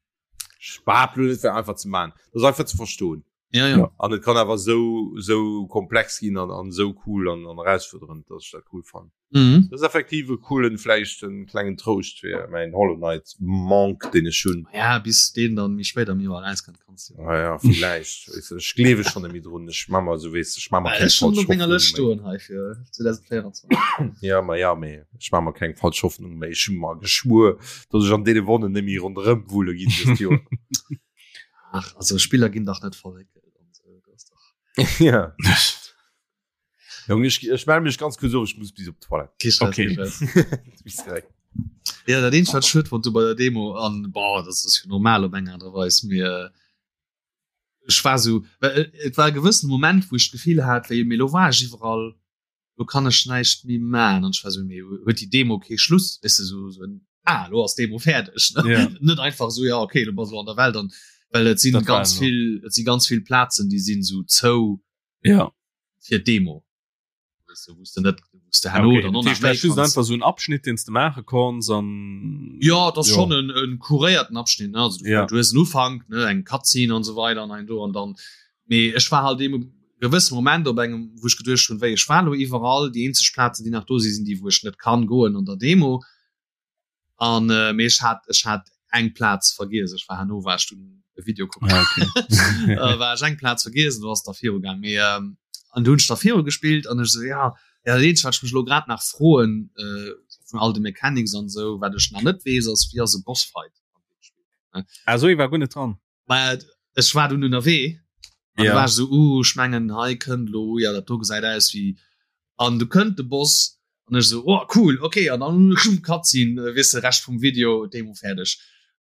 Ech behaapte lo net, wär einfach ze man. Dat ass einfach ze verstoen. Ja, ja. An et kann awer sou sou komplex ginn an an sou cool an an erausfuerderend, dass ech dat cool fannen. Mhm. Dat ass effektiv e coolen, vläicht en klengen Trouscht fir mäin Hollow Knight Manque, deen ech hunn. Ja, bis deen dann méi spéit am Joer erauskënnt, kanns du. Ah ja, villäicht. Weess de, ech gleewe schonn net méi drun. Ech ma mer sou, weess de, ech ma mer Ech keng schonn falsch op menger Hoffnung Lëscht méi. stoen hei fir 2024. Ja, ma ja, mee ech ma mer keng falsch Hoffnung méi. Ech hu mer geschwuer, dass ech an deene Wonnen net méi ronderëm wulle ginn dëst Joer. Ach, also Spiller ginn dach net verréckelt an sou, dat ass dach. Ja. Jong, ech, ech melde mech ganz kuerz of, ech muss bis op d'Toilette. Kee Stress, Okay. kee Stress. Bis direkt. Ja, dat eenzegt wat ech schued fonnt hu bei der Demo an boah, dat ass jo normal op eng Aart a Weis, mee ech war sou, well et war e gewëssene Moment wou ech d'Gefill hat wéi, mee lo war ech iwwerall, lo kann ech näischt méi man an ech war sou, mee huet déi Demo kee Schluss, weess de, sou sou en ah lo ass d'Demo fäerdeg ne Ja. net einfach sou ja okay lo bass lo an der Welt an well et sinn Dat war ganz elo. vill et si ganz vill Plazen déi sinn sou zou Ja. fir d'Demo weess de wou s de net wou s de herno Okay, dann dat och nach heescht, dat méi ass just kanns einfach sou en Abschnitt, deen s de maache konns an Ja, dat ass Jo. schonn en en kuréierten Abschnitt ne also du Ja. du hues en Ufank ne eng Cutscene an esou weider an ein do an dann Mee ech war halt deem gewësse Moment op engem, wou ech geduecht hunn, wéi ech war elo iwwerall, déi eenzeg Plazen, déi nach do sinn, sinn déi, wou ech net kann goen an der Demo. An äh, mee ech hat ech hat eng Plaz vergiess, ech war herno war ech dunn e Video kucken. Ah, okay. äh, war ech eng Plaz vergiess, du ass da viru gaang. Mee ähm, an du hunn ech da viru gespillt an ech sou ja, ja dat eenzegt wat ech mech elo grad nach froen äh, vun all de Mechanics an sou, wat ech nach net weess, ass wéi ass e Bossfight an deem Spill, ne? Ah, sou, ee war guer net dran. Mä ech war dunn ënnerwee an Ja. du war ech sou, uh, ech mengen hei kënnt lo, ja dat do gesäit aus wéi an du kënnt de Boss an ech sou, oh cool, okay an dann Cutscene, äh, weess de Rescht vum Video, Demo fäerdeg.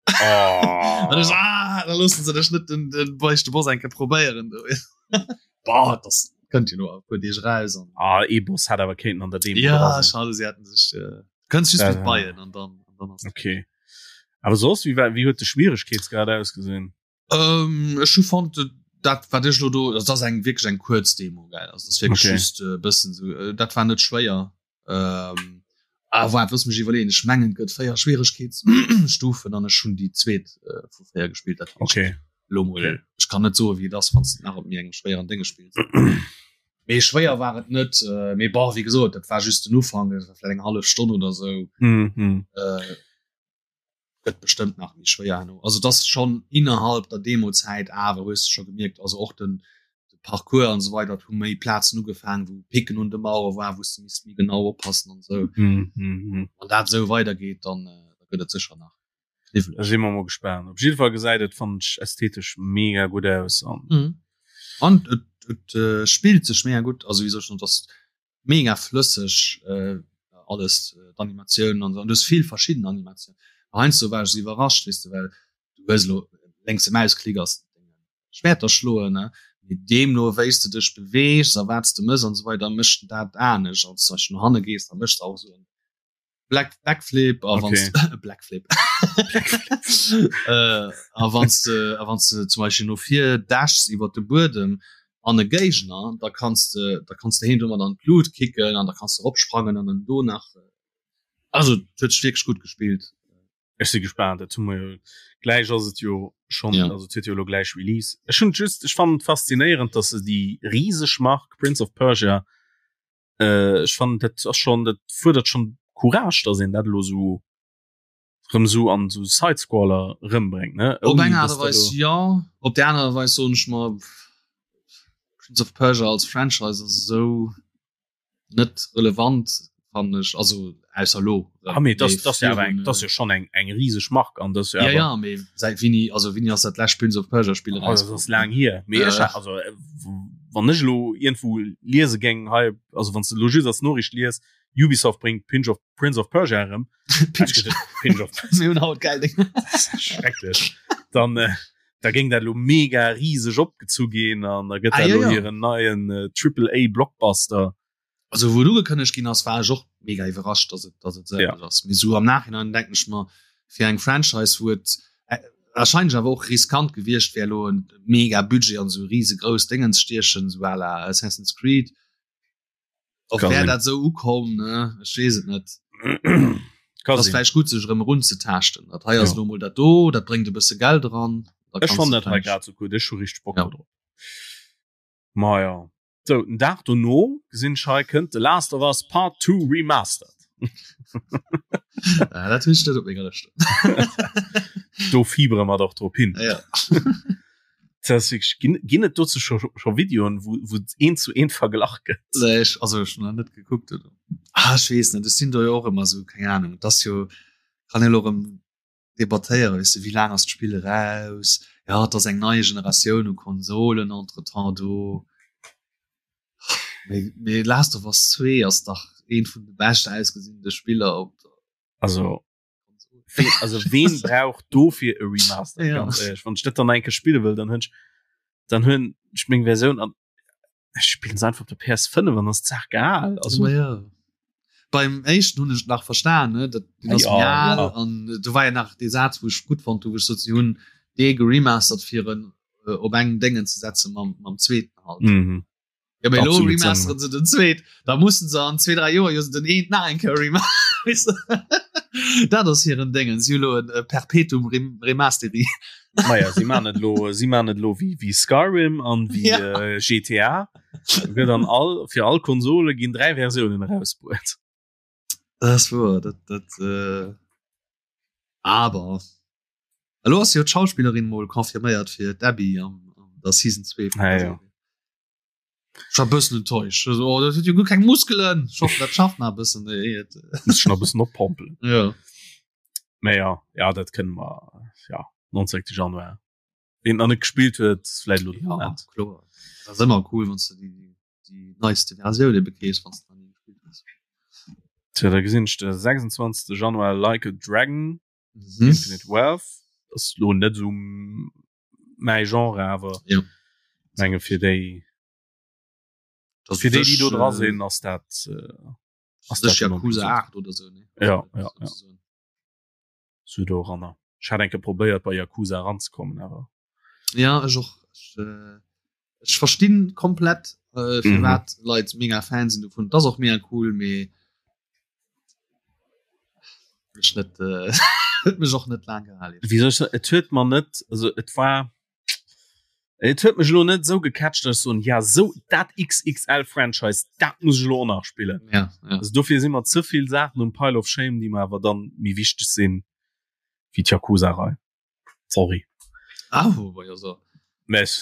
Oh. An ech, ah, da loossen se dech net den, den beichte Boss eng Kéier probéieren do. Boah, das kënnt jo no e puer Deeg raus an Ah, ee Boss hätt awer kéinten an der Demo ja, dra sinn. schade, se hätten sech äh, kënns just Ja, mit ja. Beien an dann, an dann ass Okay. Awer soss wéi war wéi huet de Schwieregkeetsgrad ausgesinn? Ähm, ech hu fonnt dat wat ech lo do dat ass eng wierklech eng kuerz Demo gell also dat wierklech okay. just e bëssen sou äh, dat war net schwéier. Ähm, ah, waart looss mech iwwerleeën ech mengen et gëtt 4 Schwieregkeetsstufen an ech hunn déi zweet äh, vu 4 gespillt dat okay. lo mol okay. ech kann net soe wéi et ass wann s de nach op méi engem schwéieren Dénge spills. Mee schwéier war et net äh, mee bon wéi gesot dat war just den Ufank dat war vläicht eng hallef Stonn oder sou. Mm -hmm. Äh, gëtt bestëmmt nach méi schwéier herno. Also das schon innerhalb der Demozäit awer hues du scho gemierkt, also och den de Parcours an esou weider, et hu méi Plazen ugefaangen, wou Picken un de Mauere war, wou s de misst méi genau oppassen an esou. Mm -hmm. Wann dat esou weidergeet, dann äh, da gëtt et sécher nach Da kniwweleg. si mer mol gespaant. Op jidde Fall gesäit et fannen ech ästhetesch mega gutt aus an Mhm. An et, et äh, spillt sech mega gutt, also wéi soll ech soen, et ass mega flësseg äh, alles äh, d'Animatiounen an so. An du hues vill verschidden Animatiounen. Heiansdo war ech so iwwerrascht, weess de, well du hues elo lénkse Mausklick ass Schwerter schloen, ne? Mee deemno wéi s de dech beweegs a wat s de mëss an esou weider, mécht en dat anescht. Als zum Beispill no hanne gees, da méchs de auch esou en Black Backflip a wann Okay. Blackflip äh, a wann de a wann de zum Beispill no vir dashs iwwer de Buedem an e Géigner, da kanns de da kanns de heen domat an d'Lut kicken an da kanns de eropsprangen an en do nach also et huet sech wierklech gutt gespillt. Ech si gespaant, dat hu mer jo gläich ass et jo schonn Ja. also et huet jo elo gläich Release. Ech hunn just ech fannen et faszinéierend, datt se déi riseg Mark Prince of Persia äh, ech fannen dat ass schon dat fuerdert schon Courage, dass een dat elo sou rëm sou an sou Sidescroller rëmbréngt ne Op eng Aart a Weis jo, op där anerer Weis soen ech mer, Prince of Persia als Franchise ass esou net relevant fannen ech, also ausser elo. Ah mee dat ass jo awer eng, dat ass jo schon eng eng riseg Mark an dat ass jo awer. Ja ja, mee säit wéini, also wéini ass dat lescht Prince of Persia Spill eraus? Dat ass laang hier, mee ech also wann ech elo iergendwou liese géing hei, also wann s de elo just als Noriicht lies, Ubisoft bréngt Pinch of Prince of Persia erëm, Pinch of Mir hunn haut geil Dénger. Schrecklech. Dann äh, da géing dat elo mega riseg opgezu ginn an da gëtt Ah, dat ja, elo ja. hiren neien äh, Triple A Blockbuster. Also wou et ugekënnegt ginn ass, war ech och mega iwwerrascht, dass et, dass et esou Ja. ass. Mee sou am Nachhinein denken ech mer, fir eng Franchise, wou et äh, wahrscheinlech awer och riskant gewiescht wär, elo en mega Budget an esou risegrouss Déngen ze stiechen, sou à la Assassin's Creed, och Kann wär sinn. dat esou ukomm, ne? Ech weess et net. Kann Ass sinn. vläicht gutt, sech erëm erunzetaaschten. Dat hei ass Ja. elo mol dat do, dat bréngt e bësse Geld eran. Da Ech kanns fannen de dat hei vläicht- grad sou gutt. Ech hu richteg Bock Ja. do drop. Ma ja. Sou, den Dag dono gesinn ech hei kënnt The Last of Us Part 2 Remastered. Ah, dat hunn ech net op menger Lëscht. Do fiebere mer dach drop hin. Ja. Dat ass wierklech, ginn, ginn et dozou scho, scho Videoen, wou, wou et eent zu eent verglach gëtt? Nee, ech, also ech hunn nach net gekuckt. Oder? Ah, ech weess net, ech sinn do jo och ëmmer sou, keng Ahnung. Et ass jo, kann een elo erëm debattéieren, weess de, wéi laang ass d'Spill eraus? Ja, et ass eng nei Generatioun u Konsolen entretemps do. Mee, mee Last of Us 2 ass dach eent vun de bescht ausgesinnte Spiller op der Also, ween, also ween brauch dofir e Remaster? Ja. Ganz ehrlech, wann ech dat dann eng Kéier spille wëll, dann hunn ech, dann hunn ech meng Versioun an ech spillen se einfach op der PS5 an ass d'Saach geal. Also, Ma ja. Beim éischten hunn ech et nach verstan, ne? Dat, deen ass Ja, méi al ja. an do war ja nach dee Saz, wou ech gutt fonnt hu, wou ech sot, si hunn dee geremastert fir en äh, op engem Déngen ze setzen mam, mam zweeten halt. mhm. Ja, mee elo Absolut remasteren se den zweet, da mussen se an zwee, dräi Joer jo den eent nach eng Kéier remaster. Dat ass hiren Déngen, si hu lo en Perpetuum Rem Remasteri. Maja, si man et lo, si man et lo wéi, wéi Skyrim an wéi Ja. äh, GTA. Gëtt an all, fir all Konsole ginn dräi Versiounen erausbruet. Dat ass wuer, dat, dat, äh, aber elo ass jo d'Schauspillerin mol confirméiert fir d'Abby am, an der Season 2 vun Ja, der ja. Serie. Ech war e bëssen enttäuscht. Also, oh, dat huet jo guer keng Muskelen. Ech hoffen, dat schafft nach e bëssen. Ey, et, Muss schon e bëssen oppompelen. ja. Mä ja, ja, dat kënne mer, ja, 19. Januar. Ween nach net gespillt huet, vläicht elo de Ja, Moment. kloer. Dat ass ëmmer cool, wann s de déi, déi neiste Versioun ebe kriss, wann s de nach ni gespillt hues. Tja, da gesinn ech de 26. Januar Like a Dragon, Mhm. Infinite Wealth. Dat ass lo net esou mäi Genre, awer Ja. menge fir déi, Das fir déi, déi do dra äh, sinn, ass dat, äh, ass das dat Yakuza 8 oder so, ne? Ja, ja, ja. Sozusagen. Sou doranner. Ech hat enke probéiert bei Yakuza eranzekommen awer. Ja ech och. Ech, äh, ech verstinn komplett äh, firwat mhm. Leit mega Fan sinn dovun. Dat ass och mega cool, mee mech net äh, huet mech och net laang gehalen. Wéi soll ech soen, et huet mer net, also et war et huet mech elo net esou gecatcht, dass ech soen, ja sou dat XXL Franchise, dat muss ech elo och nach spillen. Ja, ja. Also dofir si mer ze vill Saachen um Pile of Shame, déi mer awer dann méi wichteg sinn wéi d'Yakuza-Rei. Sorry. Ah, wobei, also. Mä ech.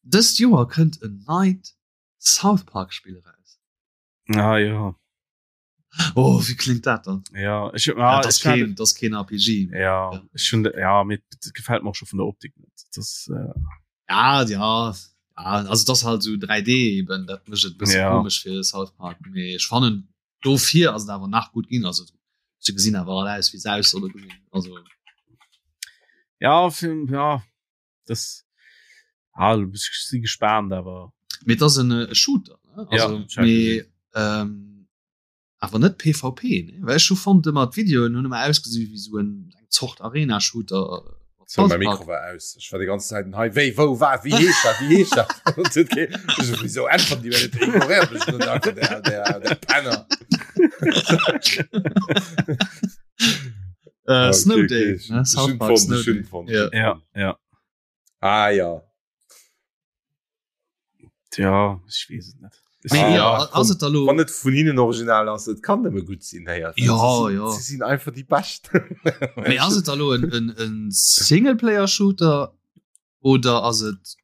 Dëst Joer kënnt en neit South Park Spill eraus. Ah ja. Oh, wéi klingt dat dann? Ja, ech, ah, ja, das keen, das keen RPG. Ja, ja. Ich schon, ja mir gefällt mir auch schon von der Optik net. Das, äh ja, ja, ja, also das halt so 3D eben, dat mécht et bësse ja. komisch fir South Park. Mee ech fannen dofir ass et awer nach gut ginn also se gesinn awer all aus wéi se aus solle gesinn. Also ja, fir, ja das ah, si gespannt awer Mee et ass en äh, Shooter ne? Also, ja, mee, ähm, awer net PvP ne? Well ech hu fonnt ëmmer d'Videoen hunn ëmmer ausgesi wéi sou en eng Zort Arena-Shooter. So, mein Mikro war aus. Ich war die ganze Zeit hei wéi wou war wie heescht dat wie heescht dat wieso äntwert die net ignoriert mech net einfach der der der Penner. Äh, Snow Day ne? South Park Snow Day. Ja. Ja, ja. Ah ja. Tja, ich wees et net. Mee ah, ja, ass et da lo Wann et vun hinnen original ass, et kann nëmme gutt sinn héier. Ja, sie, ja. Sie sinn einfach die bescht. Mee ass et da lo en, en, en Singleplayer-Shooter oder ass et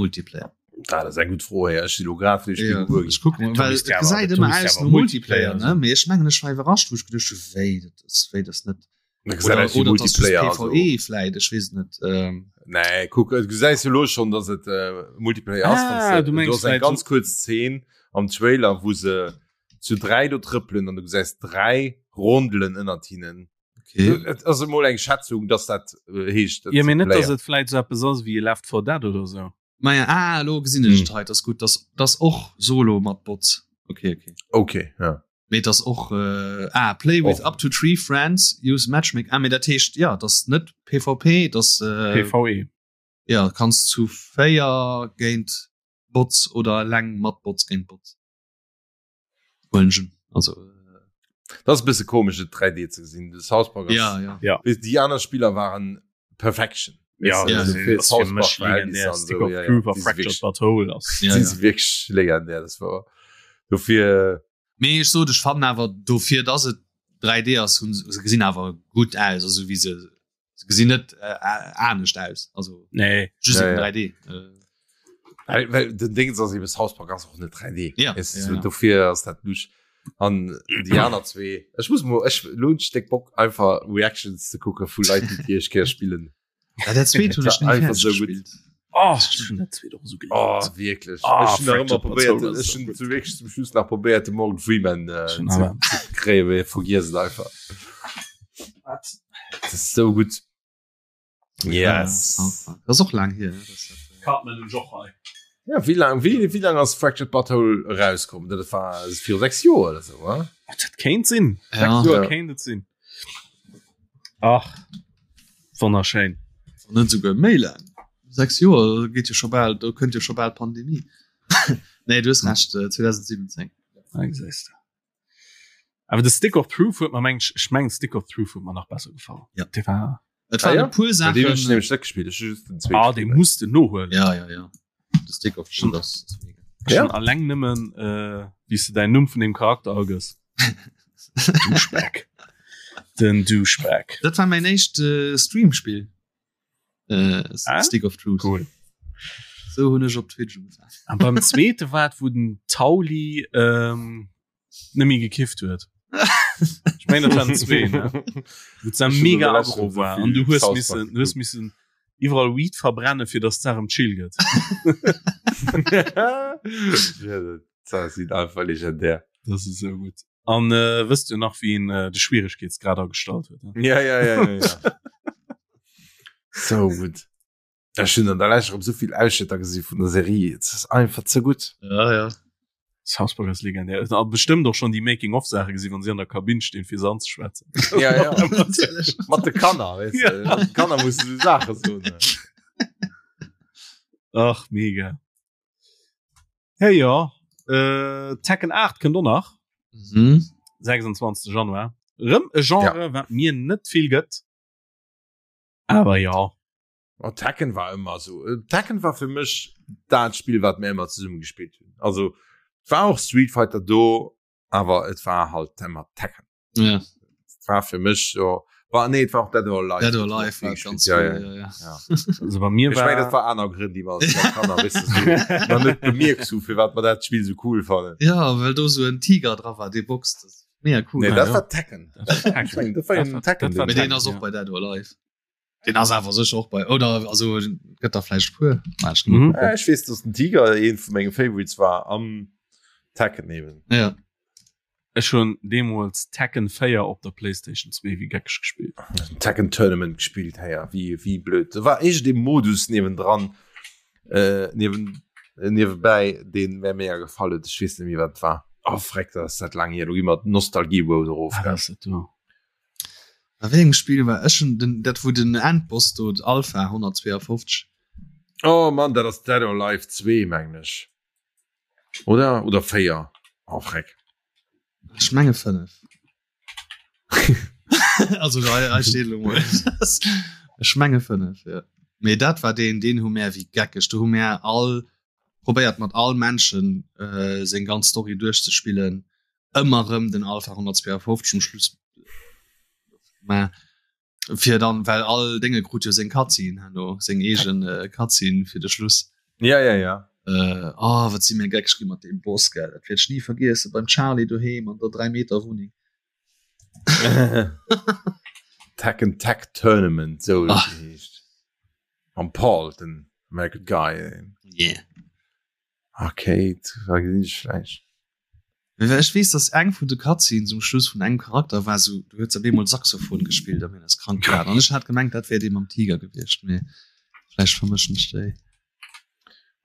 Multiplayer? Ah, dat ass eng gutt Fro héier. Ech si lo grad fir Ja, ech kuck mol, well et gesäit ëmmer aus no Multiplayer, ne? Mee ech mengen ech war iwwerrascht, wou ech geduecht hu wéi dat ass, wéi dat ass net. Oder, oder Multiplayer PvE vläit, ech weess et net. Ähm. Nee, kuck, du gesäis jo lo schon, dass et äh, Multiplayer ass. Ah, du mengst eng ganz kurz Szene am Trailer, wou se zu dräi do trëppelen an du gesäis dräi Rondelen ënnert hinnen. Okay. Et ass emol eng Schätzung, dass dat äh, heescht. Ja, mee net, dass et vläit sou eppes ass wéi Left 4 Dead oder sou. Maja, ah, lo gesinn ech et hei, das gutt, das, das och Solo mat Bots. Okay, okay. Okay, ja. Mee das och äh, ah, play with Och. up to three friends, use matchmaking. Ah, mee dat heescht, ja, das net PvP, das äh, PvE. ja, kanns zu véier géint Bots oder eleng mat Bots géint Bots. Huelen ech un. Also äh, Das ass e bësse komesch et 3D ze gesinn. De South Park ass, ja, ja. Ja. Weess, déi aner Spiller waren Perfection. Ja, Ja, das fir ass South fir Park mech Verhältnisser legendär. an Stick sou, of ja, ja. Truth a Déi si Fractured wierklech, But Whole ass. Ja, déi ja. si wierklech legendär. Das war dofir. Mee ech sot, ech fannen awer dofir, dass et 3D ass, hunn se gesinn awer gutt aus, also wéi se se gesinn net äh, anescht aus, also Nee. just Ja, eben ja. 3D. Äh, Well, well den Ding ass eben South Park ass och net 3D. Ja, Es, ja, ja. Dofir ass dat lusch. An déi aner zwee. Ech muss mo ech lo hunn ech déck Bock einfach Reactions ze kucke vu Leit, déi déi éischt Kéier spillen. Ja, dat zweet hunn ech ni Einfach fäerdeg so gutt. gespillt. Oh, ech hunn dat zweet och esou gelieft. Oh, wierklech. Ah, Ech hunn nach ëmmer Fractured But probéiert, Whole ass ech so hunn gutt. zu wierklech zum Schluss nach probéiert de Morgan Freeman äh, Schon ze, awer. ze kréien, mee vergiess et einfach. Wat? Dat ass sou gutt. Yes. Ja, South Park. Das ist och lang hier. Das, äh, Cartman und Joch hei. Ja, wéi lang, wéi, wéi lang ass Fractured But Whole erauskomm? Dat war viru 6 Joer oder sou, wa? Dat kéint sinn. Ja. Sechs Joer Ja. kéint et sinn. Ach, wonnerschéin. Wann net souguer méi laang. 6 Joer geet jo scho bal, do kënnt jo scho bal d'Pandemie. Nee, du hues Recht, äh, 2017. Ah, gesäis de. Awer de Stick of Truth huet mer meng ech mengen Stick of Truth huet mer nach besser gefall. Ja. Dee war Et Ah, waren ja? e puer Well deen hunn ech Saachen. nämlech net gespillt, ech hu just den zweete ah, dee gespillt. muss de nohuelen. Ja, ja, ja. De Stick of Truth ass ass mega. Ja? Schon alleng nëmmen äh, wéi s de däin Numm vun deem Charakter agëss. Douchebag. Den Douchebag. Dat war mäin éischt äh, Streamspill. Äh, Ah? Stick of Truth. Cool. Sou hunn ech op Twitch ugefaangen. An beim zweete war et, wou den Tauli ähm, nëmme gekifft huet. Ich mein, dat waren zwee, ne? Wou et Ech hun mega an der aggro Lescht war so an du vill hues South Park missen, du hues geguckt. missen iwwerall Weed verbrennen, fir dass d'Saach em chill gëtt. Ja, dat sinn einfach legendär. Das ist so gut. An äh, wësst du nach, wien äh, de Schwieregkeetsgrad agestallt huet? Ne? Ja, ja, ja, ja, ja. So gut. Ech hunn an der Lescht erëm sou vill Ausschnëtter gesi vun der Serie. Et ass einfach ze gutt. Ja, ja. South Park ass legendär. A bestëmmt och schonn déi Making-of-Saache gesinn, wann si an der Kabinn stinn, fir se anzeschwätzen. Ja, ja. Mat de Kanner, weess de. Ja. Mat de Kanner muss du Saache soen. Ach, mega. Hey, ja. Äh, Tekken 8 kënnt och nach. Mhm. 26. Januar. Rëm e Genre, ja. wat mir net vill gëtt. Awer ja. Oh, Tekken war ëmmer so. Äh, Tekken war fir mech dat Spiel, wat mir ëmmer zesumme gespillt hunn. Also war och Street Fighter do, awer et war halt ëmmer Tekken. Ja. Et war fir mech so war nee, et war och Dead or Alive. Dead or Alive war ganz ja, cool, ja. ja, ja. Ja. Also bei mir Ich mein, war dat war aner Grënn, déi mer als Kanner weißt du, so, nach net bemierkt hu, fir wat mer dat Spiel so cool fannen. Ja, well do so en Tiger dra war, dee boxt. Das ist mega cool. Nee, Ah, dat ja. war Tekken. Das war Ich mein, dat war Das en war- Tekken. dat war Mee Tekken, deen ass och ja. bei Dead or Alive. Den ass awer sécher och bei oder also gëtt der vläicht puer. Ah, ech Mhm. Ja, ich weess, dass den Tiger een vu menge Favorites war am Tekken eben. Ja. Ech hunn deemools Tekken 4 op der Playstation 2 wéi geckeg gespillt. Tekken Tournament gespillt hey, ja, wie wie blöd. Da war iergend ee Modus niewendran äh, niewen äh, niewebäi deen mär mega gefall huet. Ech weess net méi wat et war. Oh freck, dat ass dat laang hier. Do gi mer d'Nostalgie Road erof. Ah, dat ass et do. A wéi engem Spill war ech schon den dat wou den Endboss do Alpha 152 Oh Mann, dat ass Dead or Alive 2 mengen ech. Oder oder 4. Oh freck. Ech menge 5. Also hei hei steet elo mol. Ech menge 5 ja. Mee dat war deen deen hu mär wéi geckeg do hu mär all probéiert mat all Menschen äh, seng ganz Story duerchzespillen. Ëmmer rëm den Alpha 152 um Schluss mä fir dann well all Dénge krut jo seng Cutscene herno seng eegen äh, Cutscene fir de Schluss. Ja ja ja. Äh, oh, wat si mir geckeg gi mat deem Boss gell, dat wäert ech ni vergiessen beim Charlie doheem an der 3 Meter Wunneng. Tekken Tag Tournament sou huet Ah. et geheescht. Mam Paul den American Guy. Yeah. Okay, da gesinn ech vläicht. Well ech weess, dass eng vun de Cutscenes um Schluss vun engem Charakter war sou, du huet op eemol Saxophon gespillt a mir ass krank gelaacht. An ech hat gemengt, dat wär dee mam Tiger gewiescht, mee vläicht vermëschen ech déi.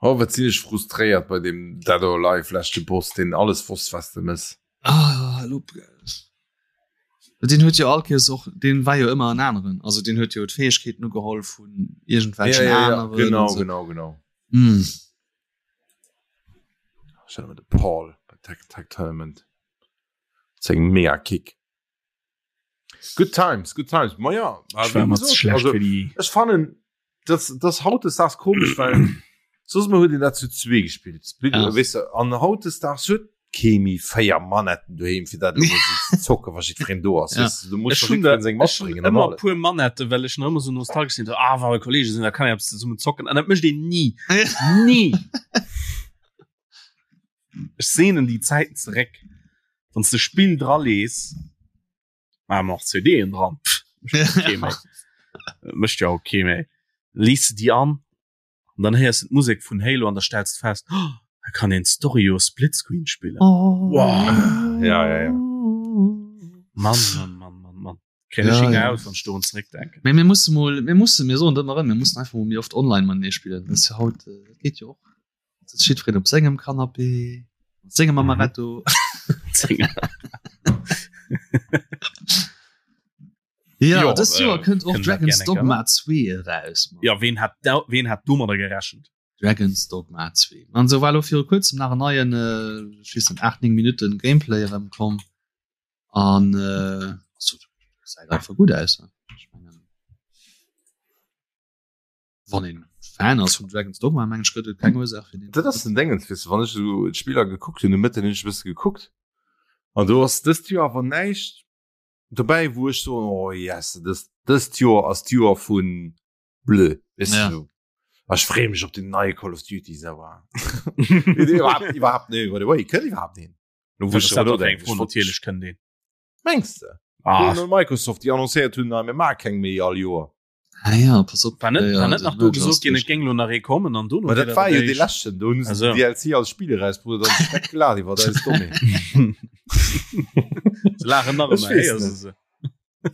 Oh, wat sinn ech frustréiert bei deem Dead or Alive leschte Boss, deen alles wosst, was de mëss. Ah, elo Deen huet jo all Kéiers och, deen war jo ëmmer en aneren, also deen huet jo d'Fäegkeeten ugeholl vun iergendwelchen Ja, ja, ja, aneren. genau, an sou. genau, genau. Mm. Stell mir de Paul bei Tech Tech Tournament. Seng mega Kick. Good times, good times. Ma ja, Ich war immer zu schlecht also, für die. ech fannen das das hautdesdaags komisch well soss mol huet een dat zu zwee gespillt Split Ja. weess de an hautdesdaags huet kee méi 4 Manetten doheem fir dat elo mol sou ze zocken wa jiddwereen do ass Ja. weess de du muss Ech doch hunn jiddwereen seng ech hunn matbréngen an ëmmer alles puer Manetten, well ech nach ëmmer sou nostalgesch sinn, so, ah, wa Kollege sinn, da kann een eppes zesummen zocken. An dat mécht een ni. Ni! Ech sehnen déi Zäiten zeréck, wann s de Spill dralees, ah, ma och CDen dran, pff, mécht jo kee méi. Mécht jo och kee méi. Lees de déi an, an dann héiers de d'Musek vun Halo an da stells de fest, oh, da kann een d'Story jo Splitscreen spillen. Wow. Ja, ja, ja. Mann, Mann, Mann, Mann, Mann. Kréien ech Ja, Hinger ja. aus, wann ech dorun zeréckdenken. Mee mir musse mol, mir musse, mir soen dat ëmmer erëm, mir mussen einfach mol méi oft online matenee spillen. Dat ass jo haut, dat geet jo och. Sitzt jiddwereen op sengem Canapé, mat sengem Mhm. Amaretto. Ja, Jo, dëst Joer äh, kënnt och kënnen dat Dragon's gerne Dogma 2 eraus. Mann. Ja, ween hat da, ween hat domadder gerechent? Dragon's Dogma 2. An sou war elo viru kuerzem nach en neien, äh, ech weess net, 8, 9 Minutten Gameplay erëmkomm. An äh, also, gesäit einfach gutt aus. Ne? Ech mengen, wann een Fan ass vum Dragon's Dogma, mengen ech, gëtt et keng Ursaach fir den. Dat ass den Dingens, weess de, wann ech esou d'Spiller gekuckt hunn, de Mëtten hunn ech e bësse gekuckt an do ass dëst Joer awer näischt dobäi, wou ech soen, oh yes, dëst, dëst Joer ass d'Joer vu blö, weess de Ja. esou. A ech freeë mech op den neie Call of Duty, sauer. Iwwerhaapt, iwwerhaapt nee, by the way, kënnt iwwerhaapt een? Lo wou Dat ech ass dat drüber och eng nodenken, Fro, ech wollt- natierlech kënnt een. Mengs de? Ah, Hunn Microsoft, déi annoncéiert hunn, na, mir maache keng méi all Joer. Ah ja, pass op. War net, Ja, war net den nach do Merger gesot ass ginn, duerch. et géing lo nach ee kommen an dono Ma wier dat war jo dee eréischt- leschten, do hunn se Also. den DLC als Spiel erausbruet an sech weggelaacht iwwer eis Dommheet. Se laachen nach Ech ëmmer, weess héiers net. de se.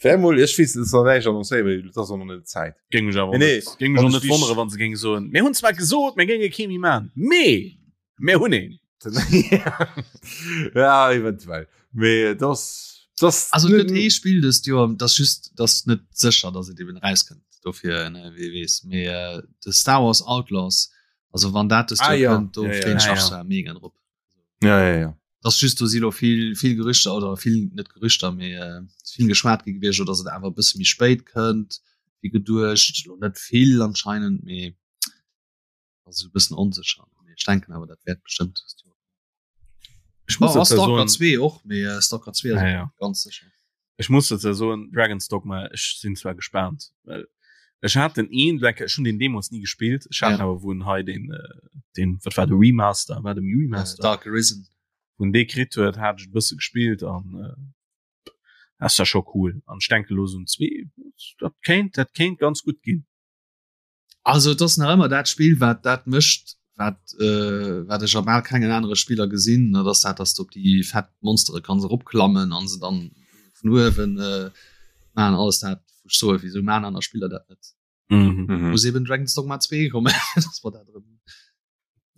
Wär mol, ech weess, et ass nach näischt annoncéiert, mee et ass och nach net Zäit. Géing mech awer Nee, nee, net, géing mech wann och ech net wonnere, wéi- wann se géinge soen, mir hunn zwar gesot, mir géinge kee méi man, mee mir hunn een. Ja eventuell mee das das also gëtt ee Spill dëst Joer das just das net sécher dass et eben rauskënnt dofir ne wie weess mee äh, de Star Wars Outlaws also wann dat dëst ah, Joer ja. kënnt do ja, ja. freeën ech Ah, mech ja. zwar mega drop ja ja ja das just do si lo vill vill Gerüchter oder vill net Gerüchter mee äh, vill geschwat gi gewiescht dass et awer e bësse méi spéit kënnt wéi geduecht lo net vill anscheinend mee also e bëssen onsécher mee ech denken awer dat wäert bestëmmt dëst Joer Ech muss oh, dazu Stalker soen, 2 och mee äh, Stalker 2 ja, ja. ganz sécher Ech muss dazu soen Dragon's Dogma ech sinn zwar gespaant well ech hat den een Black ech hunn den deemools nie gespillt ech hat Ja. awer wou en hei den äh, den wat war de Remaster war dem äh, Remaster Dark Arisen wou en dee kritt huet hat ech e bësse gespillt an äh, ass ja scho cool an ech denke lo sou en zwee dat kéint dat kéint ganz gutt ginn. Also et ass nach ëmmer dat Spill wat dat mécht wat äh, wat ech a bal kengen anere Spiller gesinn, dat ass dat, dass du op déi fett Monstere kanns eropklammen an se dann vun uewen äh, man alles dat wou ech soe wieso man aner Spiller dat net. Mhm. mhm. Muss eben Dragon's Dogma 2 kommen dass mer dat erëm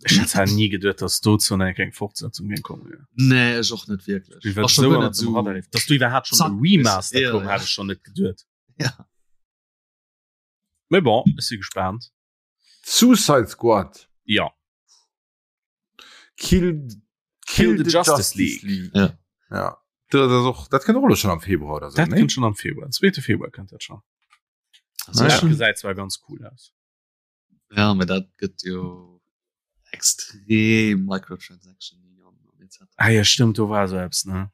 Ech hätt zwar nie geduet, dass dozou nach eng Fortsetzung géing kommen. Ja. Nee ech och net wierklech. Wie Ass schon so guer net so so dass du iwwerhaapt schon Zack, e Remaster ja, koum, ja. hat ech schon net geduet. Ja. Mais bon, ech si gespaant. Suicide Squad. Ja. Kill, Kill the Justice League. Ja. Ja. Dat ass och, dat kënnt och elo schon am Februar oder so, Dat ne? kënnt schon am Februar. Den zweete Februar kënnt dat schon. Also, Dat schon, gesäit zwar ganz cool aus. ja, mee dat gëtt jo extrem Microtransaction an etc. Ah ja, stimmt, do war so eppes, ne?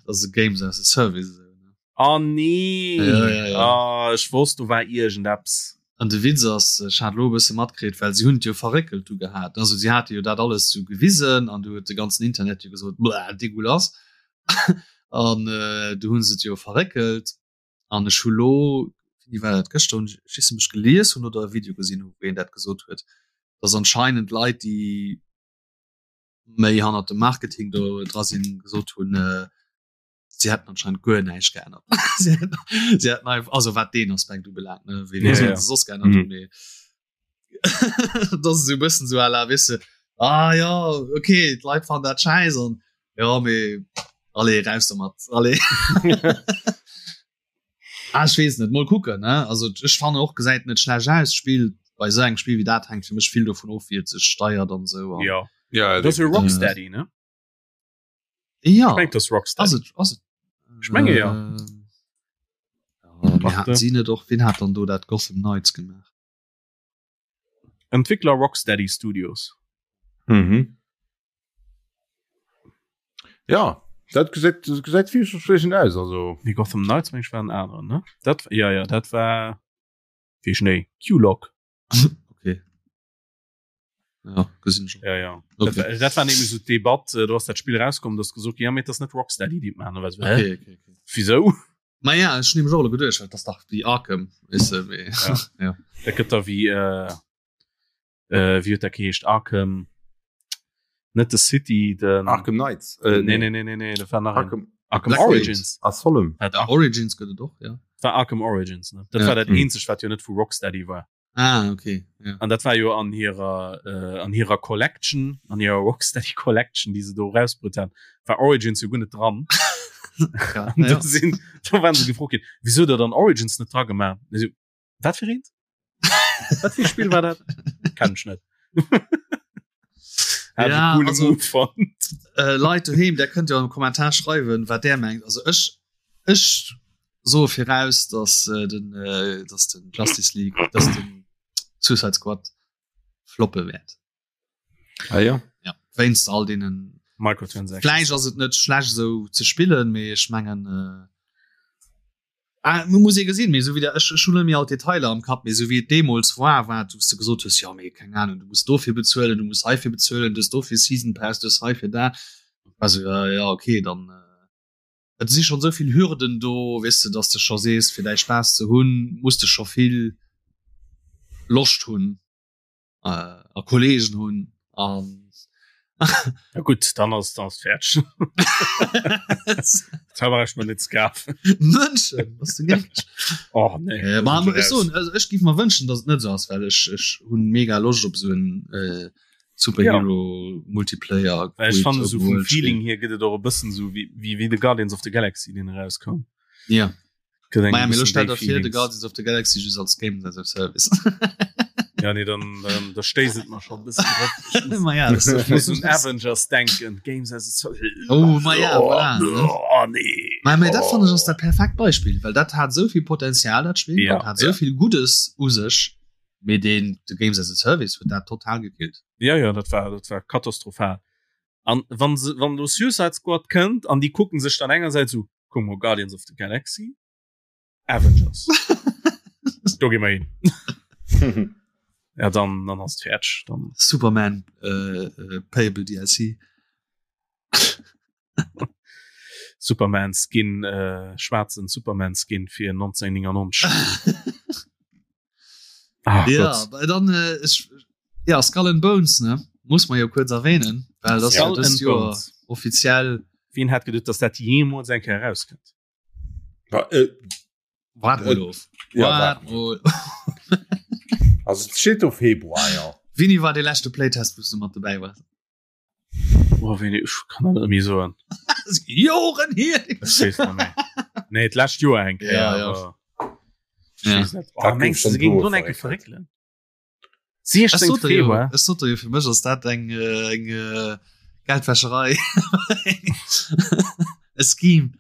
Also Games as a Service. esou, ne? Oh nee! Ja, ja, ja. Ah, ech wosst, do war iergendeppes. An de Witz ass, ech hat elo e bësse matkritt, well si hunn et jo verréckelt du gehat. Also si hate jo dat alles sou gewisen an du huet de ganzen Internet jo gesot, Bleh, dégueulasse. An äh, du hunn se et jo verréckelt an ech hu lo, wéini war dat, gëschter hunn ech, ech weess net, ob ech gelies hunn oder e Video gesinn hunn, wou een dat gesot huet, dass anscheinend Leit, déi méi hannert dem Marketing do dra sinn, gesot hunn, äh, sie hätten anscheinend guer näischt geännert. sie hätten, sie hätten einfach, also wat den Aspekt ubelaangt, ne, wéi Ja, ja, ja. se soss geännert Mhm. hunn, mee das ist so e bëssen so à la, weess de, ah ja, okay, d'Leit fannen dat schäiss an ja, mee allez, raus domat, allez. Ah, ech weess net, mol kucken, ne? Also ech fannen och gesäit net schlecht aus, d'Spill bei esou engem Spill wéi dat hänkt fir mech vill dovun of, wéi et sech steiert an esou an Ja. Ja, Dat ass jo definitiv. Rocksteady, ne? Ja. Ech meng, dat ass Rocksteady. Ass et, ass et? Ech menge ja. Ähm, ja, mir Warte. haten si net och, wien hat dann do dat Gotham Knights gemaach? Entwickler Rocksteady Studios. Mhm. Ja, dat gesäit dat gesäit vielversprechend aus also. Nee, Gotham Knights meng ech war en aneren, ne? Dat ja ja, dat war wéi Schnéi Q-Lock. Okay. Ja, gesinn schon. Ja ja. Okay. Dat, war- dat war nämlich so d'Debatt, äh, do ass dat Spill rauskomm, dass gesot ja, mee dat ass net Rocksteady, déi et maachen. Da war so, hä? Okay, okay, okay. Wieso? Ma ja, ech hunn nämlech och elo geduecht, dat ass dach wéi Arkham, weess de, mee Ja. ja. Dat gëtt da wéi äh, äh, wéi huet dat geheescht? Arkham net de City, den Arkham Knights. Äh, Nee, nee, nee, nee, nee, dat war nach een. Arkham Arkham Blackgate. Origins. Asylum. Dat Ar Origins gëtt et och, ja. war Arkham Origins, ne? Dat Ja. war dat Mhm. eenzegt, wat jo net vu Rocksteady war. Ah, okay. Ja. An dat war jo an hirer äh, an hirer Collection, an hirer Rocksteady Collection, déi se do rausbrutt han, war Origins jo guer net dran. Ja, An ja. do sinn, do waren se gefrot ginn, wieso der dann Origins net dra gemaach? An si, Wat fir eent? Wat fir e Spill war dat? Kenn ech net. Hat Ja, e coole also- Move fonnt. Äh, Leit doheem, der kënnt jo am Kommentar schreiwen, wat der mengt. Also ech ech soe viraus, dass äh, den äh, dass den Justice League, dass den Suicide Squad floppe wäert. Ah, ja. Ja, wéinst all deenen Microtransactions. Vläicht ass et net schlecht esou ze spillen, mee ech mengen äh, ah, man muss ee gesinn, mee esou wéi der ech ech hunn net méi all d'Detailer am Kapp, mee esou wéi et deemools war, war et, wou s de gesot hues, jo mee keng Ahnung, du muss dofir bezuelen, du muss heifir bezuelen, du hues dofir Season Pass, du hues heifir dat. Also ja, ja okay, dann äh, et si schonn esou vill Hürden do, weess de, dass de scho sees, fir däi Spaass ze hunn, muss de scho vill Loscht hunn. äh, a Kollegen hunn an Ja gut, dann ass das fertig. Da war ich mir net gafen. Mënschen was du gek Oh nee. äh, ma, ech soen, also ech giff mer wënschen, dass et net sou ass, well ech ech hunn mega Loscht op sou en äh, Superhero ja. Multiplayer. Ech fand so vum Feeling hier gëtt et och e bëssen so wie, wie, wie The Guardians of the Galaxy den rauskoum. Ja. Maja, mir stell der fir The Guardians of the Galaxy just als Game as a Service. ja nee dann ähm, da stéiset man schon bisschen Ma ja, muss un Avengers denken Games as a Service. Oh, ma ja, oh, voilà, ne? oh, nee. Ma, ma, dat oh. fand ich ass dat perfekt Beispiel, well dat hat soviel Potenzial dat Spiel ja, dat hat soviel ja. Gutes u sech. Mee deen de Games as a Service huet dat total gekillt. Ja ja, dat war dat war katastrophal. An wann se wann lo Suicide Squad kënnt an déi kucken sech dann engersäits u kuck mol Guardians of the Galaxy, Avengers. Do gi mer hin. Ja dann dann ass et fäerdeg dann. Superman äh, äh, Payable DLC. Superman Skin äh, schwarzen Superman Skin fir 1999. Ach, ja, dann äh, ich, ja Skull and Bones ne muss man ja kurz erwähnen weil das ja, das Jahr offiziell Wien hat gedacht dass dat jemals eng Kéier rauskënnt äh, Wart mal of. Ja, Wart mal. Also et steet do Februar ja. Wini war de leschte Playtest wou s du mat dobäi wars? Oh, wéini, ech kann dat net méi soen. Joren hier! Ech weess net méi. Nee, d'lescht Joer eng Kéier. Ja, ja. aber ech Ja. weess net. Oh, Dat gouf mengst du, schon se géingen do do eng Kéier verréckelt. verréckelen? Ech 16. sot der jo, Februar. ech sot der jo, fir mech ass dat eng, äh, eng äh, Geldwäscherei. E Scheme.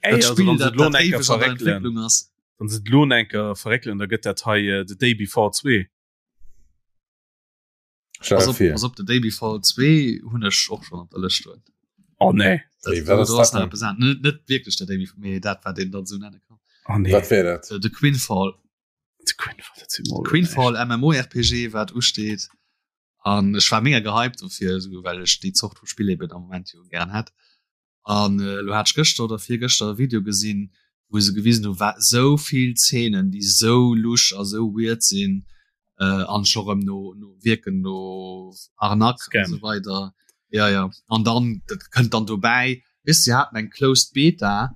Ey, Dat also, Spiel, wann se dat, lo dat eng Kéier éiweg an der verréckelen, Entwécklung ass. wann se lo eng Kéier verréckelen, da gëtt dat hei äh, The Day Before 2. Stell Pass dir op, vir. pass op, The Day Before 2 hunn ech och schon op der Lëscht stoen. Oh nee. Wéi, Dat, wat do, ass do ass dat nach denn? eppes an. Net, net wierklech The Day Before, mee dat wat een dann sou nenne kann. Oh nee. Wat wär dat? Äh, The Quinfall. The Quinfall, dat si mol Quinfall MMORPG wat usteet. An ech war mega gehypt dofir, esou well ech déi Zort vu Spill eben am Moment jo gären hätt. An elo hat ech gëschter oder virgëschter e Video gesinn, wou se gewisen hu wat esou vill Zeenen, déi esou lusch a sou weird sinn äh, an scho rëm no, no wierken no Arnaque an Scam. esou weider. Ja, ja. An dann dat kënnt dann dobäi, weess si haten eng closed Beta.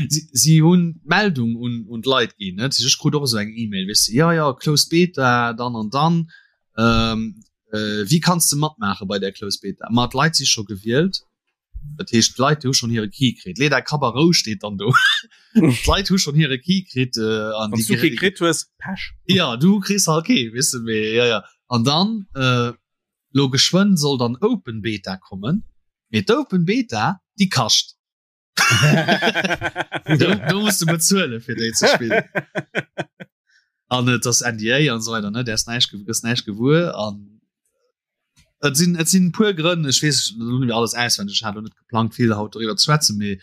Si, si hunn d'Meldung un, un d'Leit ginn, net? Ech krut och esou eng E-Mail, weess de, ja, ja, closed Beta, dann an dann. Ähm, äh, wéi kanns de matmaache bei där Closed Beta? Ma d'Leit si scho gewielt. Dat heescht, d'Leit déi hu schonn hire Key kritt. Leet är Kapp a Rou steet dann do. D'Leit hu schonn hire Key kritt äh, an Wann déi du kee kritt hues, Pech. Ja, du kriss halt kee, weess de, mee ja, ja. An dann, äh, lo geschwënn soll dann Open Beta kommen, mee d'Open Beta, déi kascht. do, do musst du bezuelen fir déi ze spillen an et ass NDA an so weiter ne der ist näischt gëss näischt gewuer an et sinn et sinn puer Grënn ech weess net alles auswendig ech hat net geplangt vill haut doriwwer ze schwätzen mee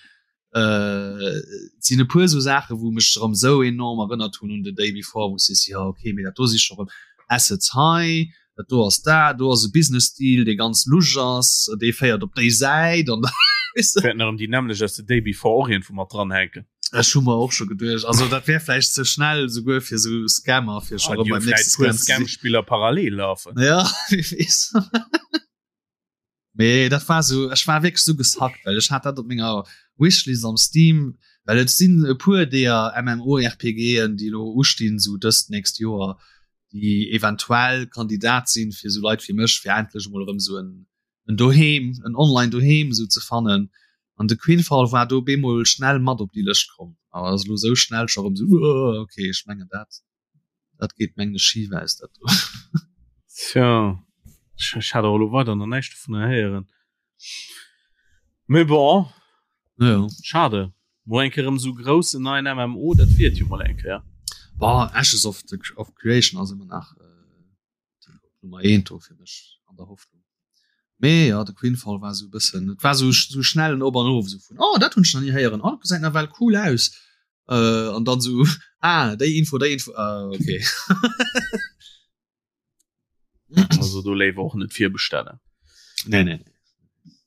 äh, sinn e puer sou Saache wou mech erëm sou enorm erënnert hunn un The Day Before wou sees ja okay mee dat do si scho rëm Assets hei dat do ass dat, do ass e Business Deal dee ganz lusch ass, dee féiert op déi Säit an weess de. Wäerten erëm déi nämmlecht aus The Day Before och iergendwou mat dranhänken. Ech hu mer och scho geduecht, also dat wär vläicht ze schnell souguer fir sou Scammer fir scho Ah, erëm déi hu beim vläicht nächste puer Scam ze sinn. Scam-Spiller parallel lafen. Ja, wie weess. Mee dat war sou, ech war wierklech sou gesackt, well ech hat dat op menger Wishlist am Steam, well et sinn e puer deeër MMORPGen, déi elo ustinn, sou dëst nächst Joer, déi eventuell Kandidat sinn fir sou Leit wéi mech, fir endlech emol erëm sou en en Doheem, en online Doheem sou ze fannen. An de Quinfall war do bemol schnell mat op déi Lëscht komm, awer ass elo sou schnell scho erëm sou, okay, ech mengen dat. Dat geet mengen ech schif aus dat do. Tja, ech, ech hat och elo weider nach näischt dovunner héieren. Mee bon, Ja. schade. Mol eng Kéier erëm esou groussen neien MMO, dat wier et jo mol eng Kéier. Boah, Ashes of the of Creation ass ëmmer nach äh, Nummer 1 do fir mech an der Hoffnung. Mee ja, de Quinfall war sou e bëssen, et war sou sou schnell en Op an Of sou vun oh dat hunn ech nach ni héieren, oh dat gesäit nawell cool aus. Äh, an dann sou ah déi Info, déi Info, ah okay. Also do léiwer och net virbestellen. Nee, nee, nee.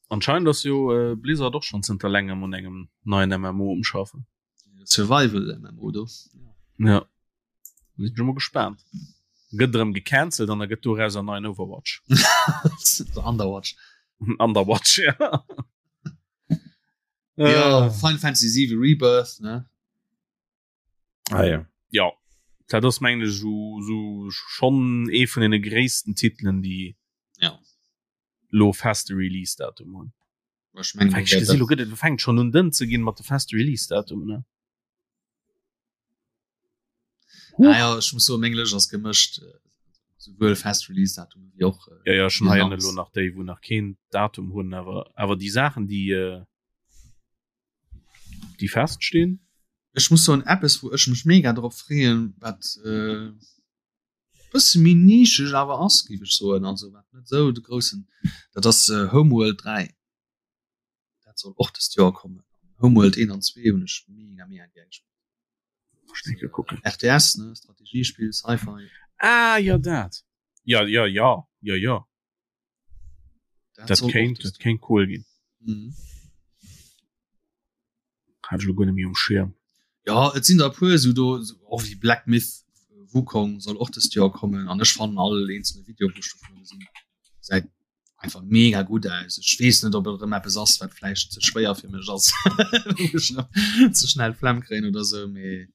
Anscheinend ass jo äh, Blizzard och schon zënter längem un engem neien MMO um schaffen. Survival MMO do. Ja. Sinn ech mol gespaant. Gëtt erëm gecancelt an da gëtt doraus en neien Overwatch. Underwatch. Underwatch, ja. Ja, Äh, Final Fantasy 7 Rebirth, ne? Ah, ja. ja. Dat ass mengen ech so, so schon ee vun den gréissten Titelen, déi. Ja. Lo feste Release-Datum hunn. Ech mengen, Ech gesinn, lo gëtt et fänkt schon un dënn ze ginn mat de feste Release-Datumen, ne? Ah ja, ech muss soen, meng Lëscht ass gemëscht, souwuel fest Release-Datumen wéi och Ja, ja, ech hunn hei elo nach déi, wou nach keen Datum hunn, awer awer déi Saachen, déi äh, déi feststinn. Ech muss soen, eppes, wou ech mech mega drop freeën, wat äh, bësse méi nischeg awer ass, géif ech soen, also wat net esou de groussen, dat ass äh, Homeworld 3. Dat soll och dëst Joer kommen. Homeworld 1 an 2 hunn ech mega mega gär gespillt. RTS ne Strategiespill Sci-Fi. Ah ja dat. Ja ja ja ja ja. Dat, dat kéint dat kéint cool ginn. Mhm. Hat ech lo guer net méi um Schirm. Ja et sinn der e puer esou do och wéi Black Myth Wukong soll och dëst Joer kommen an ech fannen all eenzelne Video wou ech dovunner gesinn gesäit einfach mega gutt aus. Ech weess net ob et erëm eppes ass wat vläicht ze schwéier fir mech ass ze schnell Flemm kréien oder sou mee.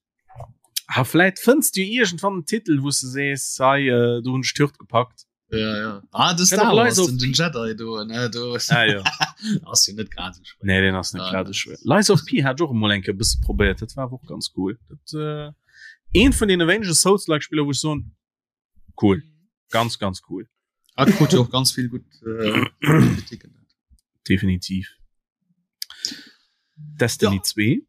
Ha vläit fënns du iergendwann en Titel wou s de sees hei äh, do hunn ech d'Hürd gepackt. Ja, ja. Ah, de Star Wars, den, den Jedi do, ne, do. Ah, ja. ass jo net grad sou schwéier. Nee, den ass net ah, grad sou schwéier. Lies of P hat ech och emol eng Kéier e bësse probéiert, dat war awer och ganz cool. Dat äh, een vun deene wéinege Souls-like Spiller wou ech soen, cool ganz ganz cool ah, krut jo och ganz vill gutt äh, Kritiken definitiv Destiny ja. 2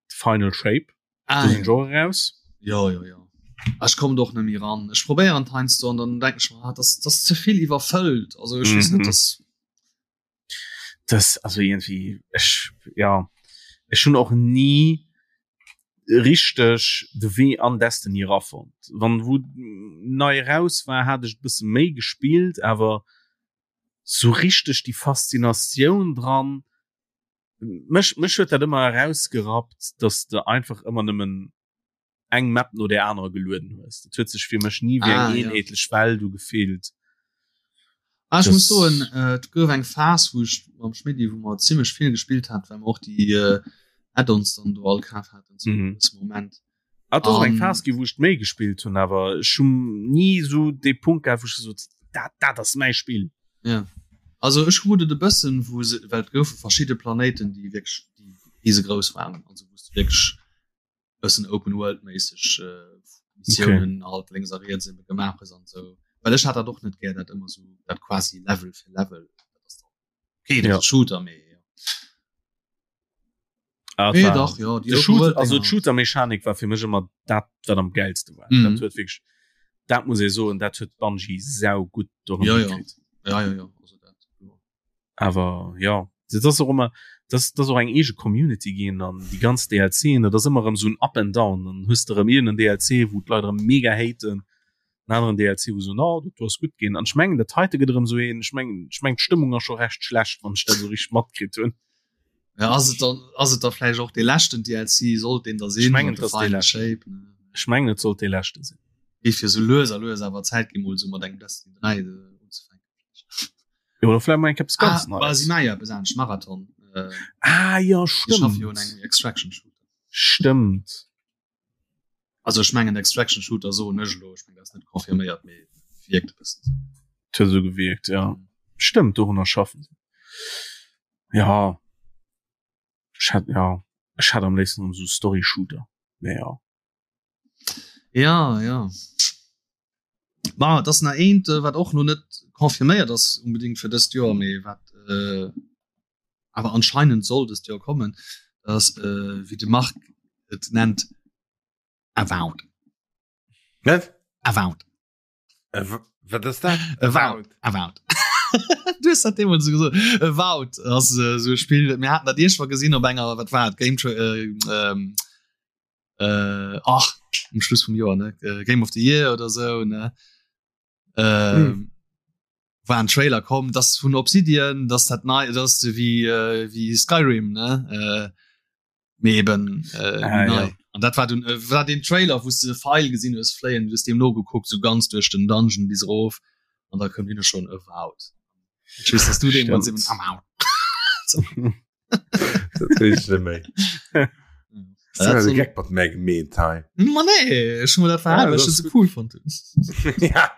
Final Shape ah, ja. Genre raus ja ja ja ah, ich komme doch nämlich ran ich probiere heinsdo und dann denke ich mir, ah, das das zu viel überfüllt also ich mhm. weiß nicht das das also irgendwie ech ja ech hunn och nie richteg de Wee an Destiny erafonnt. Wann wou nei eraus war, hat ech e bësse méi gespillt, awer sou richteg déi Faszinatioun dran, mech mech huet dat ëmmer erausgerappt, dass de einfach ëmmer nëmmen eng Map no der anerer gelueden hues. Dat huet sech fir mech ni wéi eng ah, eenheetlech ja. Welt ugefillt. Ah, ich muss soen äh, et gouf eng Phas wou ech mam Schmidti wou mer zimmlech vill gespillt hat, well mer och déi äh, Add-ons dann do all kaf haten zu mhm. Moment. Ah, dat ass eng Phas gi wou ech méi gespillt hunn, awer ech hunn ni sou dee Punkt gehat, wou ech gesot dat dat ass mäi Spill. Ja. Also ech krut et e bëssen, wou se well et goufe verschidde Planéiten, déi wierklech déi risegrouss waren, also wou s du wierklech bëssen Open World méisseg äh, Missionen okay. halt links a riets eben gemaach hues an sou. Well ech hat dat och net gär, dat ëmmer sou dat quasi Level fir Level. Dat ass dann okay, dat ja. Shooter mee ja. Ah, nee, dach, ja, die Shooter, also d'Shooter-Mechanik war fir mech ëmmer dat wat am geilste war. Mm. Dat huet wirklich dat muss ee soen, dat huet Bungie sau gutt ja, ja. Ja, ja, ja. Also dat, ja. Awer ja dat ass och ëmmer dat ass och eng eege Community ginn an déi ganz DLCen, dat ass ëmmer erëm esou en Up and Down. Dann hues de erëm iergend en DLC, wou d'Leit erëm mega haten, en aneren DLC, wou se soen, oh dat do ass gutt ginn. An ech mengen dat heite gëtt erëm esou een, ech mengen ech mengen d'Stëmmung ass scho recht schlecht, wann ech dat esou richteg matkritt hunn. Ja, ass et dann ass et da vläicht och dee leschten DLC, sollt deen da sinn? Ech mengen et ass dee leschten. Ech mengen et sollt dee leschte sinn. Géif jo sou lues a lues awer Zäit ginn, mol esou mat engem Destiny 3 unzefänken. Ja, oder vielleicht mal etwas ganz ah, Neues. Sie machen ja etwas anderes, Marathon. Äh, ah, ja, stimmt. Ja einen Extraction Shooter. Stimmt. Also ich meine, Extraction Shooter so nicht, ich meine, das ist nicht konfirmiert, aber wirkt ein bisschen so. Hat so gewirkt, ja. Mhm. Stimmt, dorunter schaffen sie. Ja. Ich hätte, ja. Ich hätte am liebsten so Story Shooter. Naja. Ja, ja. Ma et ass nach eent, äh, wat och lo net confirméiert ass unbedingt fir dëst Joer, mee wat äh, awer anscheinend soll dëst Joer kommen, dat ass äh, wéi de Marc et nennt Avowed. Wat? Avowed. Wat ass dat? Avowed. Avowed. Du hues dat deemools esou gesot. Avowed ass äh, esou e Spill, mir haten dat iergendwann gesinn op enger, wat war et, Game äh, ähm, äh, ach um Schluss vum Joer ne äh, Game of the Year oder so ne äh, mm. war ein Trailer kommen das vun Obsidian das dat nei das wie äh, wie Skyrim ne äh, mee eben äh, ah, ja. an dat war dun, äh, war den Trailer wo du Pfeil gesinn hues fléien du dem no geguckt so ganz durch den Dungeon bis rof an da kommt hin schon Avowed. Ich weiß, dass du den am Geck mat mé gemeet hei. Ma nee ech hun dat verhalen, well ech se cool fand. Ja.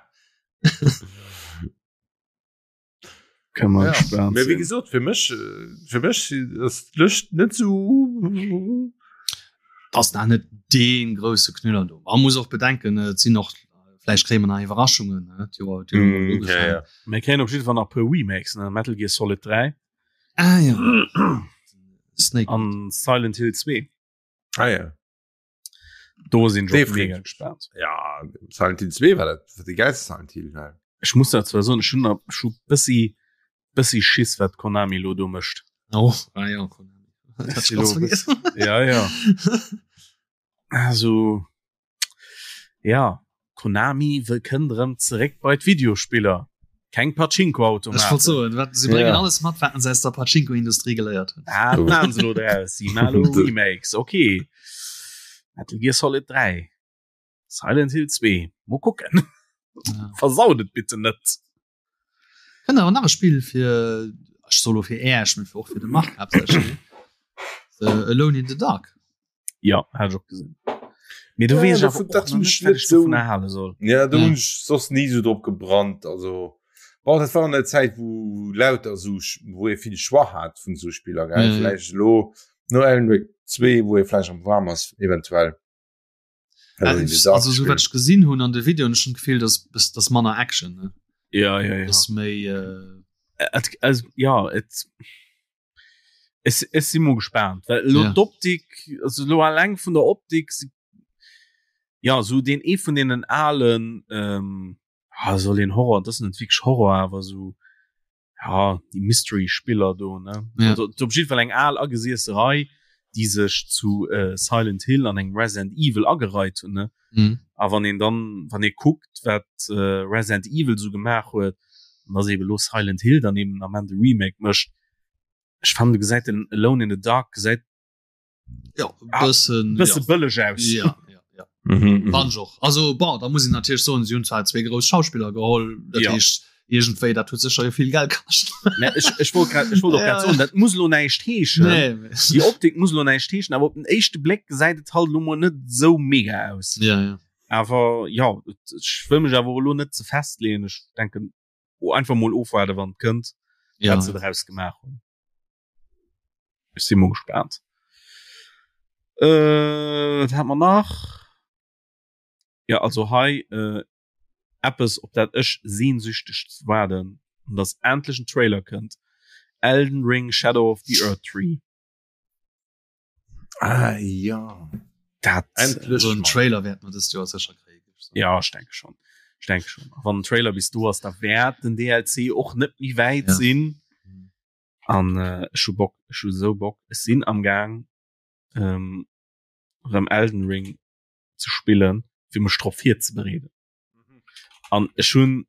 Kann man ja. Mee wéi gesot fir mech fir mech ass d'Lëscht net sou ass da net dee grousse Knüller do. Man muss och bedenken et sinn och vläicht kréie mer nach Iwwerraschungen ne d'Joer d'Joer mm, ja, ja. Mir kréien op jidde Fall nach puer Remakes ne Metal Gear Solid 3 ah, ja. Snake an Silent Hill 2. Ah, ja. Do sinn ech och mega gespaant. Ja Silent Hill 2 war dat war de geilste Silent Hill. Ne? Ech muss dat zwar soen, ech hunn ech hu bëssi bëssi Schiss wat Konami lo do mécht. Oh, ah, ja, Konami. Dat hab ich ganz vergessen. Ja ja. Also ja Konami wëll kënnt erëm zeréck bei d'Videospiller. Keng Pachinko-Automaten. Ech wollt soen, wat, se bréngen ja. alles mat, wat se aus der Pachinko-Industrie geléiert hunn. Ah, dat maachen se lo draus. Si maachen lo Remakes. Okay. Metal Gear Solid 3. Silent Hill 2. Mo kucken. Ja. Versaut et bitte net. Kënnt awer nach e Spill fir, ech soe lo fir Äech, mee och fir de Marc haaptsächlech, Alone in the Dark. Ja, hat ech och gesinn. Mee du weess awer och dat nach net, wat ech dovun erhale soll. Ja, do hunn ech soss ni sou drop gebrannt. Also bon, dat war an der Zäit, wou lauter sou, wou ee vill Choix hat vun sou Spiller, gell. Mhm. Vläicht elo no Alan Wake 2, wou ee vläicht am waarm ass, eventuell. Also sou wat ech gesinn hunn an de Videoen, ech hunn d'Gefill, dass dass manner Action, ne? Ja, ja, ja. Dass méi äh Et, also, ja, et Ech, ech si mo gespaant, well elo ja. d'Optik, also lo alleng vun der Optik, ja so den ee vun deenen alen ähm, ah, soll een Horror, das net wierklech Horror, awer so ja die Mystery Spiller do ne ja. also, op jeden Fall eng al agesiesse Rei, déi sech zu äh, Silent Hill an engem Resident Evil agereiht hunn ne mhm. a wann een dann wann ee kuckt wat äh, Resident Evil so gemaach huet, an dass eben lo Silent Hill dann eben am Ende Remake mécht Ech fannen du gesäit den Alone in the Dark gesäit ja, ah, bëssen bësse ja. bëlleg aus. Ja, ja, ja. Mhm, mhm. Och. Also bon, da muss ich natierlech soen, si hunn zwar zwee grouss Schauspiller geholl, dat ja. heescht iergendwéi dat huet sécher jo vill Geld kascht. Nee, ech, ech wollt grad, ech wollt och grad soen, dat muss lo näischt heeschen. Nee, nee. Déi Optik muss lo näischt heeschen, awer op den éischte Bléck gesäit et halt lo mol net sou mega aus. Ja, ja. Awer ja, ech wëll mech awer och elo net ze festleeën. Ech denken, oh, einfach mol ofwaarde wann et kënnt, ja. wat se draus gemaach hunn. Ech si mol gespaant. Äh, wat hat mer nach? Ja, also hei äh, eppes op dat ech sehnsüchteg waarden, an dass endlech en Trailer kënnt. Elden Ring Shadow of the Erdtree. Ah, ja. Dat Endlech So en Trailer wäert mer dëst Joer sécher kréien. Ja, ech denke schon. Ech denke schon. A wann den Trailer bis do ass, da wäert den DLC och net méi wäit Ja. sinn. An äh, ech hu Bock, ech hu sou Bock. Ech sinn am Gaang ähm, rëm Elden Ring ze spillen, fir mech drop virzebereeden. An ech hunn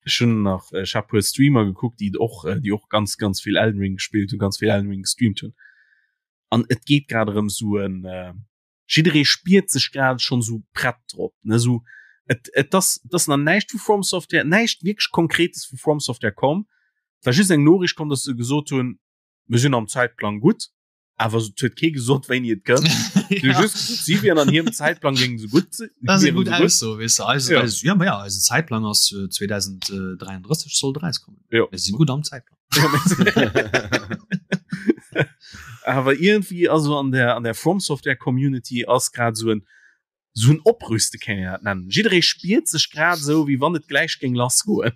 ech hunn nach ech hat puer Streamer gekuckt, déi och äh, déi och ganz ganz vill Elden Ring gespillt hunn, ganz vill Elden Ring gestreamt hunn. An et geet grad erëm sou en äh, jidderee spiert sech grad schonn sou prett drop, ne sou et et ass et ass nach näischt vu From Software, näischt wierklech Konkretes vu From Software komm. Et war just eng Noriicht komm, datt se gesot hunn, mir sinn am Zäitplang gutt. Awer et huet kee gesot wéini et kënnt. Si hu just gesot, si wieren an hirem Zäitplang géingen se gutt sinn. Dat ass eng wieren gutt se gutt. Ausso, weess de. Eise, Ja. eise, ja, ma ja, eisen Zäitplang ass äh, 2033 soll et erauskommen. Ja. Mir si gutt am Zäitplang. Awer iergendwéi also an der an der From Software Community ass grad esou en esou en Oprüste kéint een dat nennen. Jidderee spiert sech grad esou wéi wann et gläich géing lassgoen.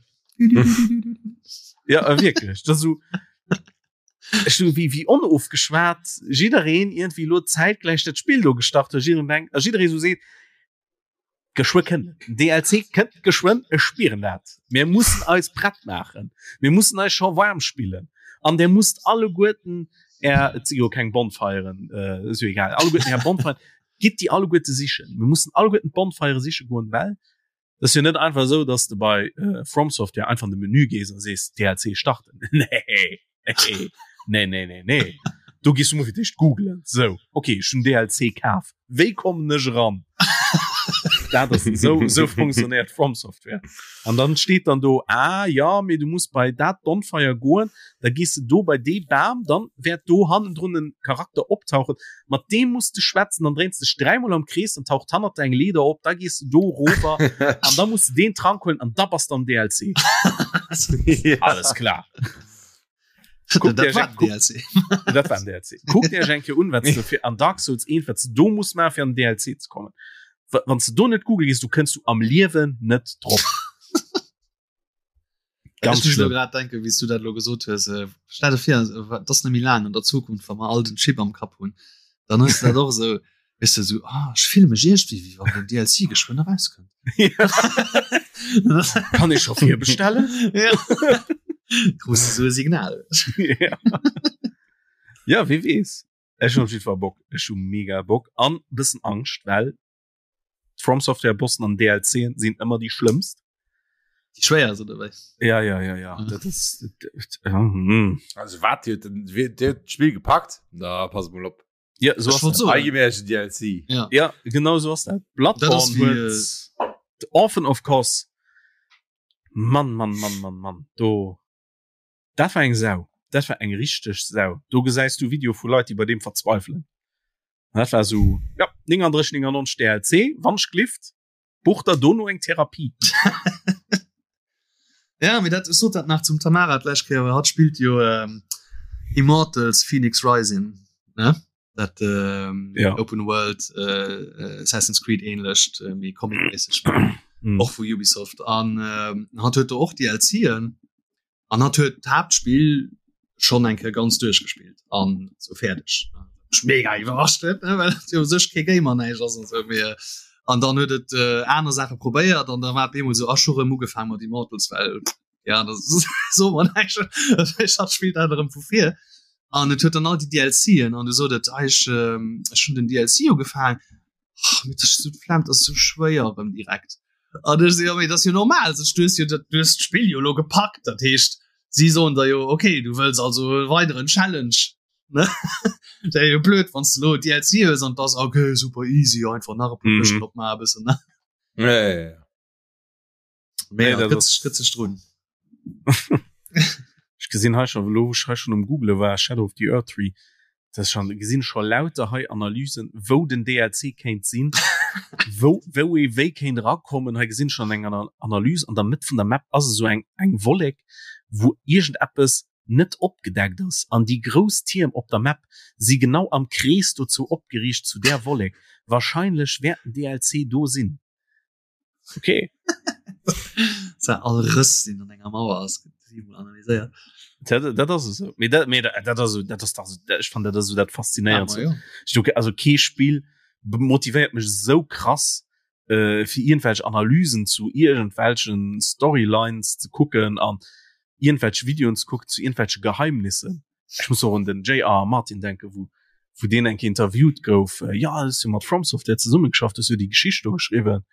Ja, äh, wierklech. Dat ass esou ech so wéi wéi onofgeschwat jiddereen iergendwéi elo zäitgläich dat Spill do gestart huet, jiddereen denkt a jidderee esou seet, geschwë kënnt et, den DLC kënnt geschwënn, ech spieren dat. Mir mussen eis prett maachen, mir mussen eis scho waarm spillen an der musst alleguerten är, et si jo keng Bonfiren, äh, ass jo egal, alleguerten är Bonfiren, gitt déi alleguerte sichen. Mir mussen alleguerten d'Bonfire siche goen, well Et ass jo net einfach esou, dass de bei äh, From Software einfach an de Menü gees a sees DLC starten. Nee, nee, nee, nee, nee, nee. Do gees du mol fir d'éischt googlen. Sou, okay, ech hunn DLC kaf. Wéi kommen ech eran? Dat ass sou, sou funktionéiert From Software. An dann steet dann do, ah ja, mee du muss bei dat Bonfire goen, da gees de do bei dee Bam, dann wäert do hannendrun en Charakter optauchen. Mat deem muss de schwätzen, dann dréins dech dräimol am Krees, dann taucht hannert der eng Leeder op, da gees du do rover an da muss du deen Trank huelen an da bass de am DLC. ja. Alles klar. Guckt Iech eng- DLC. Dat war en DLC. Kuckt Iech eng Kéier un, wat du fir an Dark Souls 1, wat du do muss maachen, fir an den DLC ze kommen. Wa- Wann du do net Google gehst, du kënns du am Liewen net drop. Ganz Ech muss lo schlimm. grad denken, wéi s du dat lo gesot hues. Äh, stell dir vir, äh, dat ass net méi laang an der Zukunft, wa mer all den Chip am Kapp hunn, dann hues du dat och esou, weess du, esou, ah, ech fille mech iergendwéi, wéi wann den DLC geschwënn erauskënnt. Kann ech scho virbestellen? Ja. Krus du esou e Signal. ja. ja, wie weess. Ech hunn op jeden Fall Bock. Ech hu mega Bock an bëssen Angscht, well From Software Bossen an DLCen sinn ëmmer déi schlëmmst. Déi schwéierst oder wéi? Ja ja ja ja mhm. dat ist, ja, hm. Also wat dir huet d'Spill gepackt? Da pass mol op. Ja so ass so. DLC. Ja. ja genau so ass dat. Bloodborne huet äh, Orphan of Kos. Mann Mann Mann Mann Mann do dat war eng Sau. Dat war eng richteg Sau. Do gesäis du Video vu Leit, déi bei deem verzweifelen. Dat war sou ja 39 99 DLC wann ech glift buch der dono eng Therapie. Ja mee dat ech sot dat nach zum Tamara d'lescht Kéier, well hatt spillt jo ähm, Immortals Fenyx Rising ne dat ähm, ja. Open World äh, äh, Assassin's Creed ähnlecht äh, méi comicméisseg Spill mm. och vu Ubisoft an ähm, hatt huet do och DLCen An hatt huet d'Haaptspill schonn eng Kéier ganz duerchgespillt an sou fäerdeg. Mech mega iwwerrascht huet, ne, well et jo u sech kee Gamer näischt ass an sou. Mee an dann huet et äh, aner Saache probéiert an da war et bemol sou, ach, ech hu rëm ugefaang mat Immortals, well ja, dat so mer näischt. Ech hat spillt dat erëm vu vir. An et huet dann all déi DLCen an du sot et, ah, ech, ähm, ech hunn den DLC ugefaang. Oh, mit so d'Flemm, das ist so schwéier erëm direkt. An ech so, ja, mee das ist jo normal, sech du hues jo dat, du hues d'Spill jo lo gepackt, dat heescht, si soen der jo, okay, du wëlls also e weideren Challenge, ne? Wär jo blöd, wann s du lo DLC hues an 't ass, okay, super easy, einfach nach e puer Mhm. Këschten opmaachen e bëssen, ne? Ja, ja, ja. Mee Nee, ja, dat gëtt ass- sech, gëtt sech drun. Ech gesinn hei schon lo wou ech hei schon um Google war Shadow of the Erdtree dat schon gesinn scho lauter hei Analysen wou den DLC kéint sinn wou wou ee wéi kéint erakommen hei gesinn schon eng Analyse an der Mëtt vun der Map ass esou eng eng Wollek wou iergendeppes net opgedeckt ass an déi grouss Tierm op der Map si genau am Krees dozou opgeriicht zu där Wollek wahrscheinlech wäert den DLC do sinn. Okay. All Rëss deen an enger Mauer ass, gëtt siebenmol analyséiert. Dat, dat ass esou. Mee dat, mee dat, dat ass esou, dat ass dach esou, ech fannen dat ass esou dat Faszinéierendst. Ja, ma jo. Ech do, also kee Spill motivéiert mech esou krass, äh, fir iergendwelch Analysen zu iergendwelchen Storylines ze kucken an iergendwelch Videoen ze kucken zu iergendwelche Geheimnissen. Ech muss och un den JR Martin denken, wou wou deen eng Kéier interviewt gouf, äh, ja, hues jo mat From Software zesummegeschafft, hues jo déi Geschicht do geschriwwen,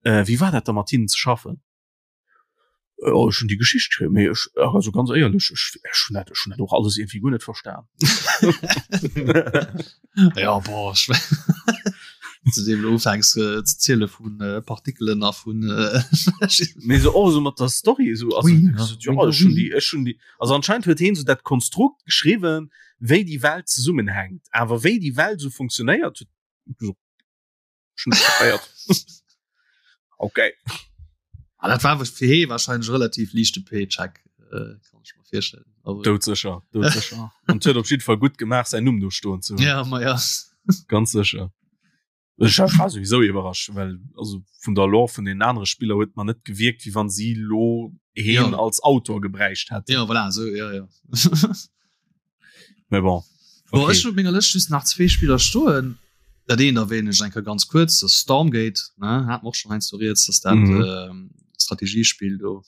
äh, wéi war dat da mat hinnen ze schaffen? Äh, oh, ech hunn déi Geschicht geschriwwen, mee ech, also ganz éierlech, ech, ech hunn dat, ech hunn dat och alles iergendwéi guer net verstan. Ja, boah, ech zu deem du ufänks äh, ze ziele vun äh, Partikelen a vun äh, Mee so och so mat der Story so, also, Ui, so, ja, ech hunn déi, ech hunn déi, also anscheinend huet heen so dat Konstrukt geschriwwen, wéi déi Welt zesummenhänkt, awer wéi déi Welt so funktionéiert, huet so, ech hunn net kapéiert. Okay. Ah, dat war fir hee wahrscheinlech relativ liichte Paycheck, äh, kann ech mer virstellen. Aber Doudsécher, doudsécher. An huet op jidde Fall gutt gemaach, säin Numm do stoen ze hunn. Ja, ma ja. Ganz sécher. Ech war sowieso iwwerrascht, well also vun der Lore vun den anere Spiller huet man net gewierkt, wéi wann si lo heen Ja. als Autor gebräicht hätten. Ja, voilà, so, ja, ja. Mais bon. Bon, Okay. ech hunn op menger Lëscht just nach zwee Spiller stoen. Dat eent erwähnen ech eng Kéier ganz kuerz, dat ass Stormgate, ne, hat mer och schonn heiansdo rieds, dass dat Mhm. ähm, Strategiespill do.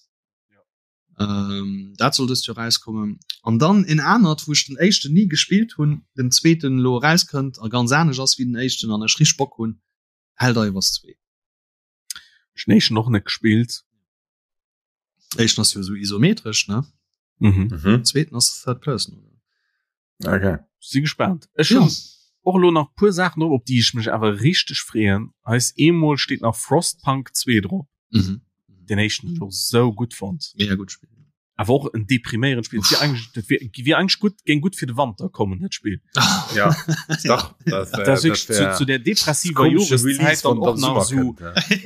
Ähm, dat soll dëst Joer rauskommen. An dann en anert, wou ech den éischten ni gespillt hunn, den zweeten elo erauskënnt a ganz anescht ass wéi den éischten an ech richteg Bock hunn, Helldivers 2. Ech hunn den éischten och net gespillt. Éischten ass jo esou isometresch, ne? Mhm. Mhm. Zweeten ass Third Person, oder? Okay. Si gespannt. Ech hunn och elo nach puer Saachen drop, op déi ech mech awer richteg freeën. Eis eemol steet nach Frostpunk 2 drop. Mhm. Den éischten hunn ech och sou gutt fonnt. Mega gutt Spill. Awer och en depriméierend Spill. Wier eigentlich, dat wier, wier eigentlich gutt, géing gutt fir de Wanter kommen, dat Spill. Ja, dach, dat, Dat ass wirklich zu, zu der depressiver Joreszäit dann och nach sou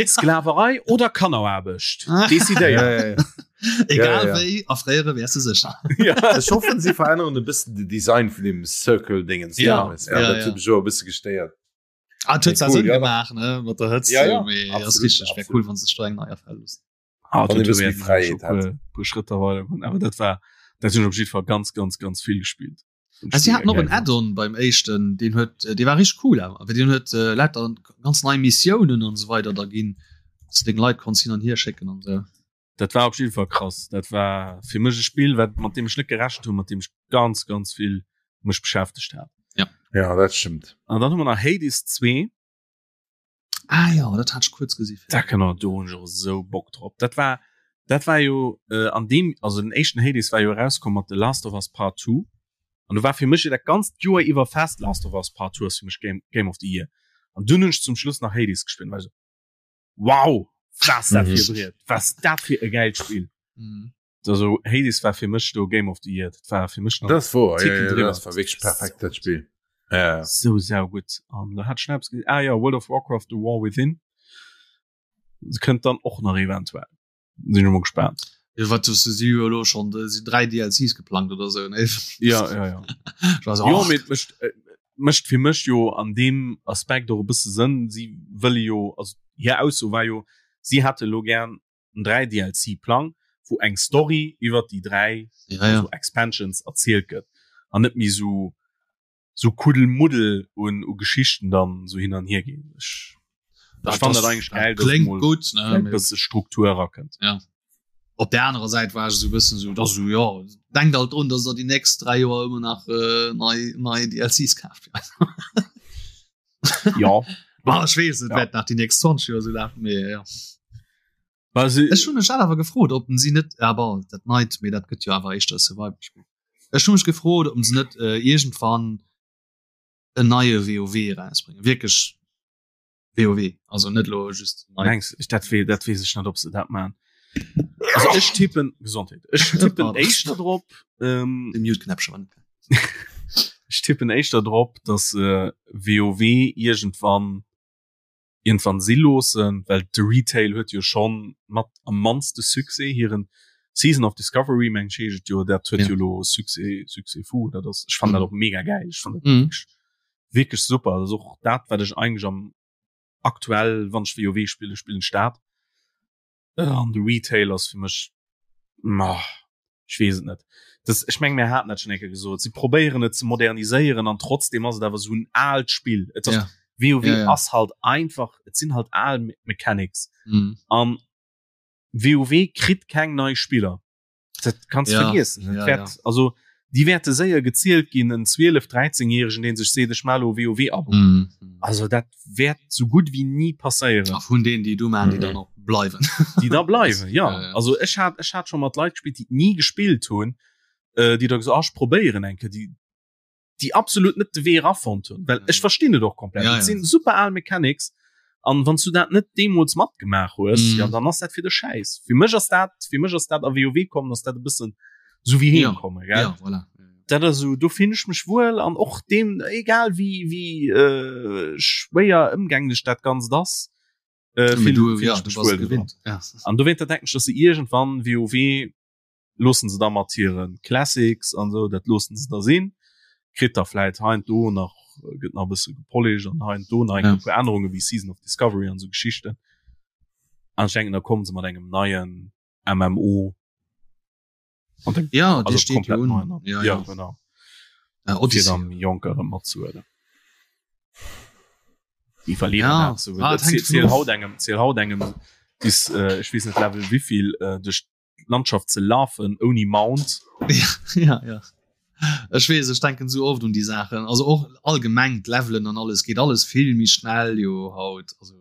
Sklaverei oder Kanneraarbecht. Decidéiert. Ja, ja, ja. Egal ja, ja. wéi erfréiere wäers du sécher. Ja. Ech hoffen si veränneren e bëssen de Design vun dem Circle Dingens. Ja, ja, ja, dat ja. e bësse gestéiert. Ah, huet cool, Sënn ja. gemaach ne mat der Hëtzt ja, ja. ass richtig wär cool wann se streng nei erfäll loossen. Ah, dat huet Fräiheet hat. Puer Schrëtter weider goen, awer dat war dat hunn ech op jiddwer Fall ganz ganz ganz vill gespillt. Ah, si haten och en Add-on beim éischten, deen huet äh, dee war richtig cool awer, well deen huet äh, lauter ganz nei Missiounen an esou weider da ginn, dass du deng Leit konns hin an hier schécken an esou. Dat war op jiddwer Fall krass. Dat war fir mech e Spill, wat mat deem ech net gerechent hunn, mat deem ech ganz ganz vill mech beschäftegt hat. Ja. Ja, dat stëmmt. An dann hu mer nach Hades 2. Ah ja, dat hat ech kuerz gesi. Da genau, do hunn ech och esou Bock drop. Dat war dat war jo äh, an deem also den éischten Hades war jo erauskomm mat The Last of Us Part 2. An do war fir mech jo dat ganzt Joer iwwer fest Last of Us Part 2 ass fir mech Game, Game of the Year. An dunn hunn ech zum Schluss nach Hades gespillt, war ech esou wow, was dat fir e Briet, was dat fir e gäilt Spill. Mhm. Also Hades war fir mech do Game of the Year, dat war fir mech nach Das wor ja, Ticken ja, driwwer. das war wirklich perfekt dat Spiel. Ja. so saugutt. An da hat Schnaps ge ah ja World of Warcraft The War Within kënnt dann och nach eventuell. Sinn ech mol gespaant. Ja, wat du si jo elo schon de si 3 DLCs geplangt oder sou ne? Ja ja ja. Ich war so, Jo ach, mee et mécht äh, mécht fir mech jo an deem Aspekt och e bësse Sënn. Si wëlle jo also hir Ausso war jo, si hätte lo gär en 3 DLC Plang wou eng Story iwwer déi 3 ja, ja. also Expansions erzielt gëtt an net méi sou sou Kuddelmuddel un u Geschichten dann sou hin an hier ginn. Ech Dat ech fannen ass- dat eigentlech geil, dass kléngt mol gutt ne? e bësse Struktur erakënnt. Ja. Op der anerer Säit war ech esou e bëssen esou, dass esou, ja, denkt alt drun, dass der déi nächst 3 Joer ëmmer nach äh, nei, nei DLCs kaaft. Ja. Bah, ech weess, et Ja. wäert nach déi nächst 20 Joer esou lafen, mee ja. Well se Ech hunn mech dat awer gefrot, ob si net, ja bon, dat neit, mee dat gëtt jo awer éischter e Survival-Spill. Ech hu mech gefrot, ob se net äh, iergendwann en neie WoW erausbréngen. Wierklech WoW, also net lo just nei. Mengs ech dat wee dat weess ech net, ob se dat man. Also ech tippen Gesondheet. Ech tippen éischter drop ähm, De Mute-Knäppche war net. ech tippen éischter drop, dass äh, WoW iergendwann iergendwann si loossen, well de Retail huet jo schonn mat am mannste Succès hiren Season of Discovery meng ech heescht et jo, dat huet Ja. jo lo Succès Succès fou. Dat ass ech fannen dat och mega gäil. Ech fannen dat Mhm. wierklech wierklech super. Dat ass och dat wat ech eigentlech am aktuell wann ech WoW spillen, spillen ech dat. An de Retail ass fir mech ma ech weess et net. Das, ech meng mir haten dat schon eng Kéier gesot. Si probéieren et ze moderniséieren an trotzdem ass et awer esou en aalt Spill. Et ass Ja. WoW Ja, ja. ass halt einfach, et sinn halt al Me Mechanics. Mhm. An WoW kritt keng nei Spiller. Dat kanns Ja, vergiessen. Dat ja, wäert, ja. also déi wäerte séier gezielt ginn, en 12, 13 Järegen, deen sech seet, ech maache lo WoW-Abo. Mhm. Also dat wäert sou gutt wéi ni passéieren. A vun deenen, déi du maachen, déi Mhm. dann och bleiwen. Déi da bleiwen, ja. Ja, ja. Also ech hat, ech hat scho mat Leit gespillt, déi et ni gespillt hunn, äh, déi da gesot, ah, ech probéieren eng Kéier, déi, déi absolut net de Wee erafonnt hunn. Well ech verstinn et och komplett. Ja, Et ja. sinn super al Mechanics. An wann s du dat net deemools matgemaach hues, Mhm. ja, dann ass dat fir de Schäiss. Fir mech ass dat, fir mech ass dat a WoW kommen, ass dat e bëssen sou wéi Ja. heem kommen, gell? Ja, voilà. Dat ass sou, do finn ech mech wuel an och deem, egal wéi, wéi äh, schwéier ëmgänglech dat Ganzt ass, äh, Mee finn, du, finn ja, ech du mech bass wuel dran. gewinnt. Ja. An dowéinter denken ech, dass se iergendwann WoW loossen se da mat hiren Classics an sou, dat loossen se da sinn. Kritt da vläit hei an do nach, gëtt nach e bësse gepolished an hei an do nach eng Ja. puer Ännerunge wéi Season of Discovery an sou Geschichten. An ech denken, da kommen se mat engem neien MMO. An dem, Ja, dee also steet jo komplett un. neien an. Ja, Ja, ja. genau. Äh, Fir Odyssey. dann Jonker erëm matzehuelen. Déi verlieren Ja, dat sou. ah, et hänkt Ziel vun of. haut engem, ziel haut engem bis, äh, ech weess net Level wéivill, äh, duerch Landschaft ze lafen ouni Mount. Ja, ja. Ech weess, ech denken sou oft un déi Saachen. Also och allgemeng d'Levelen an alles geet alles vill méi schnell jo haut. Also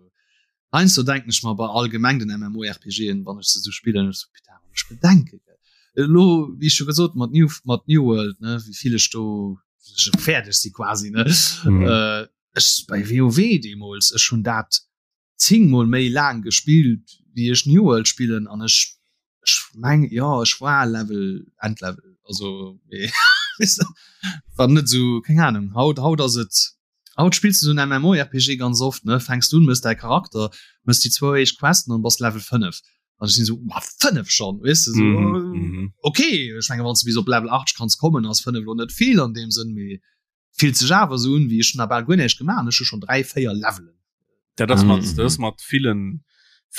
heiansdo denken ech mer bei allgemeng den MMORPGen, wann ech se sou spillen, ech sou, putain, wann ech bedenke gell. Elo, wéi ech scho gesot mat New, mat New World, ne, wéi vill ech do fäerdeg si quasi, ne. Mhm. Äh, ech bei WoW deemools, ech hunn dat 10 mol méi laang gespillt wéi ech New World spillen an ech ech meng jo ech war Level Endlevel also mee war net sou keng Ahnung haut haut ass et haut spills du sou en MMORPG ganz oft ne fänks du un mëss däi Charakter mëss déi zwou éischt Questen an bass Level 5. An ech sinn esou, ma 5 schonn, weess de, esou, mm -hmm. okay, ech menge wann s du bis op Level 80 kanns kommen, ass 5 lo net vill an deem Sënn, mee fillt sech awer esou un, wéi ech hunn nach bal guer näischt gemaach an ech hu schonn 3, 4 Levelen. Dat ass mat, dat ass mat villen,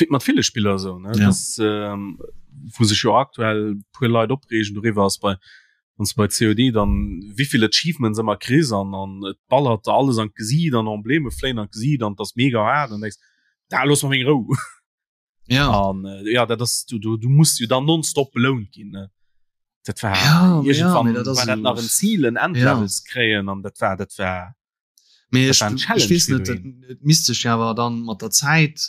mat ville Spiller esou, ne? Ja. Das, ähm, wou sech jo aktuell puer Leit opreegen doriwwer ass bei wann du bei COD dann wievill Achievements ëmmer kriss an an et ballert der alles an d'Gesiit an Embleme fléien an d'Gesiit an das mega hart an denkst da looss mer meng Rou. Ja. An äh, ja dat ass du, du, du musst jo dann nonstop belount ginn ne? Dat war ja, irgendwann ja, dat war dat nach en Ziel en Endlevels ja. kréien an dat war dat war Mee ech, ech weess net, et misst sech awer dann mat der Zäit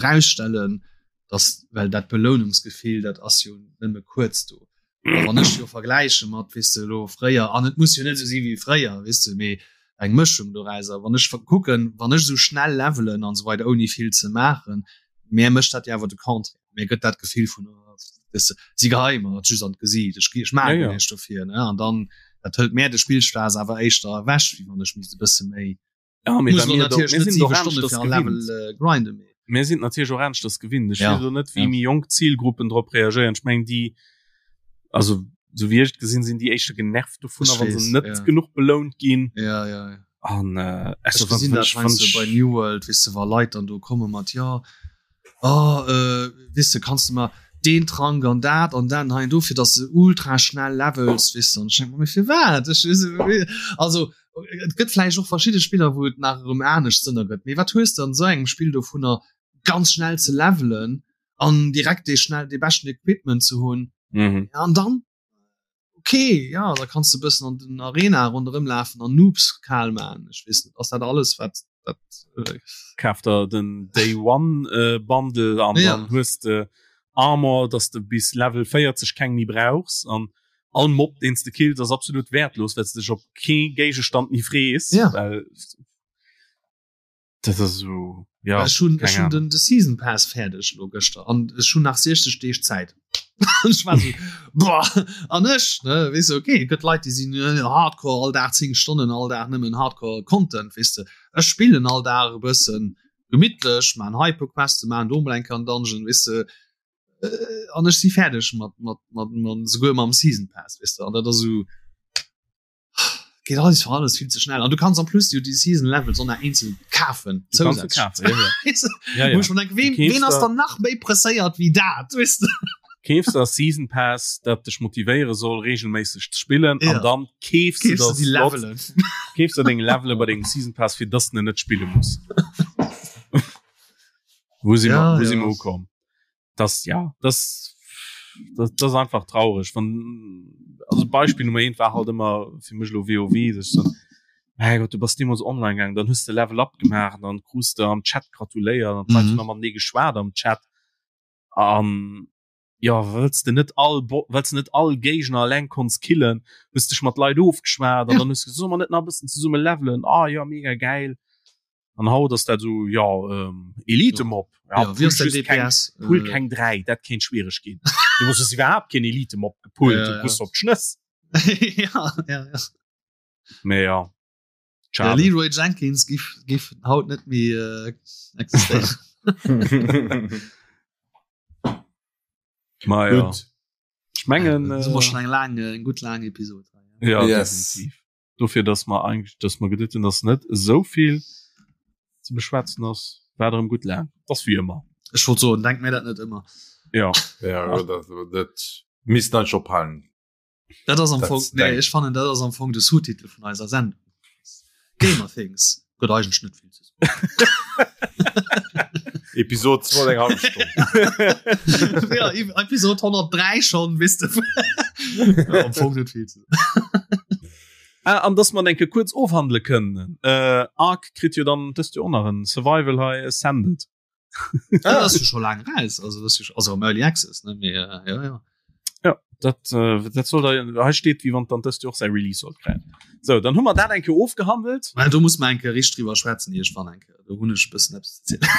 rausstellen, dass well dat Belounungsgefill dat ass jo nëmme kuerz do. A wann ech jo vergläiche mat weess de elo fréier an et muss jo net esou si wéi fréier weess de, mee eng Mëschung dorauser, wann ech kucken, wann ech esou schnell levelen an esou weider ouni vill ze maachen, mär mécht dat jo awer de Contraire, mär gëtt dat Gefill vun weess de, si geheie mer et just an d'Gesiit, ech ech maache Ja, ja. näischt dofir ne an dann dat hëlt mär de Spillspaass awer éischter ewech, wéi wann ech misst e bësse méi Ja, mee muss well lo mir do, natierlech mir net sinn 7 och Stonne aneschters fir en Level gewinnt. äh, grinden, mee Mir sinn natierlech och aneschters gewinnt. Ech Ja, weess elo net, wéi ja. méi jonk Zilgruppen drop reagéieren. Ech mengen déi, also sou wéi ech et gesinn, sinn déi éischter genervt dovunner, Ech wa se weess, net ja. genuch belount ginn. Ja, ja, ja. An äh, Ech also, wann, gesinn wann dat ech, wann heiansdo bei ech New World, weess de, wa Leit dann do komme mat, jo, oh, äh, weess de, kanns de mer deen Trank an dat an dat an hei an do, fir dass de ultra schnell levels, weess de. An ech denke mer, mee firwat? Ech, weess de, also et gëtt vläicht och verschidde Spiller, wou et nach erëm anescht Sënn ergëtt, mee wat hues de an esou engem Spill dovunner, ganz schnell ze levelen an direkt dee schnell, dee beschten Equipment ze hunn? Mhm. An dann? Okay, ja, da kanns de bëssen an den Arena ronderëm lafen an Noobs kal man. Ech weess net, ass dat alles wat dat äh, Kaf der den Day One äh, Bundle an Ja. dann hues de Armor, dass de bis Level 40 keng méi brauchs an all Mob deen s de kills ass absolut wertlos, well s de dech op kee Géigestand méi frees. Ja. Well dat ass esou ja Ech hunn ech keng hunn den de Season Pass fäerdeg lo gëschter an ech hunn nach 60 Deeg Zäit. Ech war so boah an ech ne weess de okay et gëtt Leit déi sinn äh, Hardcore all Dag 10 Stonnen all Dag nëmmen Hardcore Content weess de. Ech spillen all Dag e bëssen gemittlech, maan hei e puer Questen, maan do mol eng Kéier en Dungeon weess de äh, an ech si fäerdeg mat mat mat mat souguer mam Season Pass weess de an dat ass esou Geht alles für alles viel zu schnell. An du kannst en plus jo die Season Levels och nach eenzel kafen. Du kannst se kafen, ja, ja. Ja, ja. Wo ich mir denk, wem, Du keefs wen ass der- dann nach méi presséiert wéi dat, weißt du? Keefs der Season Pass, dat dech motivéiere soll regelméisseg ze spillen Ja. an dann keefs du Keefs du der die Slot, Levelen. keefs der deng Levele bei dengem Season Pass fir dass du net spille muss. Wo si Ja, mer, wo si ja. mer ukomm? Das ja, das das, das ist einfach traurig. Wann also Beispiel Nummer 1 war halt immer fir mech lo WoW, dass ich dann mein Gott, du bass deemools online gaangen, dann hues de Level up gemaach, dann krus de am Chat gratuléiert an d'Leit Mhm. hunn nach matenee geschwat am Chat. An ja, wëlls de net all Bo wëlls de net all Géigner alleng konns killen, hues dech mat Leit ofgeschwat an Ja. dann hues gesot, solle mer net nach e bëssen zesumme levelen? Ah ja, mega gäil. An haut ass dat esou, ja, ähm, Elite-Mob. Ja, Ja, wie ass pull dein just keng, DPS? pull Äh, keng 3, dat kéint schwiereg ginn. Du hues iwwerhaapt keen Elite-Mob gepullt, Ja, du ja. krus op d'Schnëss. ja, ja, ja. Mee ja, Der schade. Leroy Jenkins giff, giff haut net méi äh, existéieren. Ma ja. Gutt. Ech mengen, Das war äh, schon eng lang, eng gutt lang Episode. ja, Yes. definitiv. Dofir, dass mer eigentlech, dass mer geduet hunn, dass net esou vill ze beschwätzen ass, war erëm gutt laang. Ass wéi ëmmer. Ech wollt soen, denk mir dat net ëmmer. Ja. Ja, dat, dat misst dann schon ophalen. Dat ass am Dat Fong, nee, denk- ech fannen dat ass am Fong de Sous-Titel vun eiser Sendung. Gamer Things gëtt eigentlech net vill ze soen. Episode 2 eng halbe Stonn. ja, Episode 103 schon, wisst du. ja, am Fong net vill ze soen. Ah, an dass man enke kuerz ofhandele kënnen. Äh, Ark kritt jo dann dëst Joer och nach en Survival hei Ascended. Ah, das ist schon lang raus. Also, das ist, also am Early Access, ne? Mee, äh, ja, ja. Ja, dat, äh, dat soll da, hei steet, wéi wann dann dëst Joer och säi Release sollt kréien. So, dann hu mer dat eng Kéier ofgehandelt. Well do muss man enke richt drüber schwätzen, iergendwann eng Kéier. Do hunn ech e bëssen eppes ze zielen.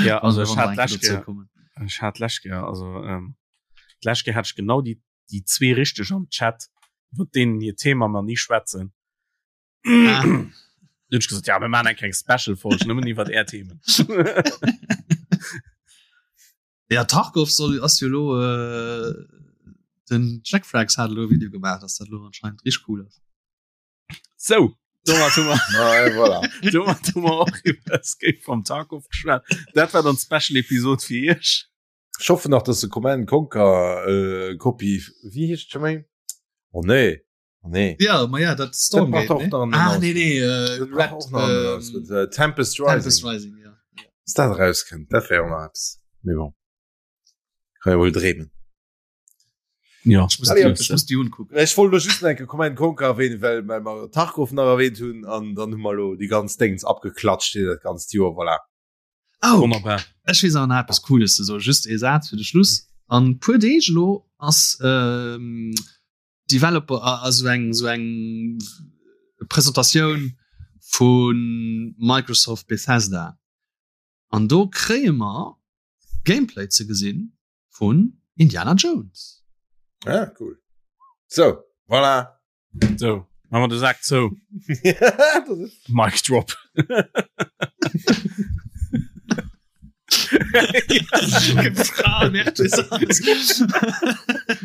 Ja, also Wann ech wir hat eng Kéier d'lescht dozou Kéier, kommen. ech hat d'lescht Kéier, also ähm, d'lescht Kéier hat ech genau déi, déi zwee richteg am Chat, iwwer deenen hir Thema mer ni schwätzen. Ah. Dann hunn ech gesot, ja, mir maachen eng kleng Special-Folg nëmmen iwwer är Themen. Ja Tarkov soll ass jo lo äh, den Jack Frags hat lo Video gemacht, dass dat lo anscheinend richtig cool ass. So domat hu mer Ah, et voilà. domat hu mer och iwwer Escape from Tarkov geschwat. Dat war dann d'Special Episode fir iech. Ech hoffen nach, dass de Command Conquer äh, Copy, wéi heescht scho méi? Oh nee, oh nee. Ja, ma ja, dat Stormgate. Dat ne? Ah, nee, nee, äh, Dat Red, brauch och nach ähm, ähm, äh, Tempest Rising. Tempest Rising, ja. Dass dat rauskënnt, dat wär och nach eppes. Mee bon. Kann ja wohl dreemen. Ja. Ich muss, Allez, die, ich muss die unkucken. Ech wollt lo just nach enke Command Conquer erwähnen, well, well mer Tarkov nach erwähnt hunn an dann hu mer lo déi ganz Déngens abgeklatscht hier dat ganzt Joer, voilà. Oh, Wonnerbar. Ech weess awer nach eppes Cooles ze soen, just ee Saz fir de Schluss. An puer Deeg elo ass ähm, Developer, also eng sou eng Presentatioun vu Microsoft Bethesda. An do kréie mer Gameplay ze gesinn vun Indiana Jones. Ah, cool. So, voilà. So, machen wir den Sack zu. Mic drop.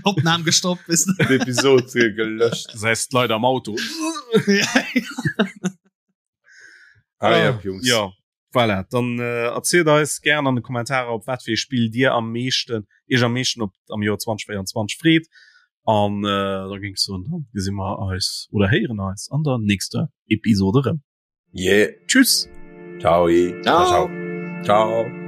Opnahm gestoppt bis Episode gelöscht. Das heißt Leute am Auto. ah, ja, Jungs. Ja. Voilà, dann äh, erzielt eis gern an de Kommentarer op wat fir Spill dir am meeschten iech am meeschten op am Joer 2024 freet an äh, da géing ech soen dann gesi mer eis oder héieren eis an der nächster Episode rëm. Yeah. Tschüss. Ciao. Ciao. Ciao. Ciao.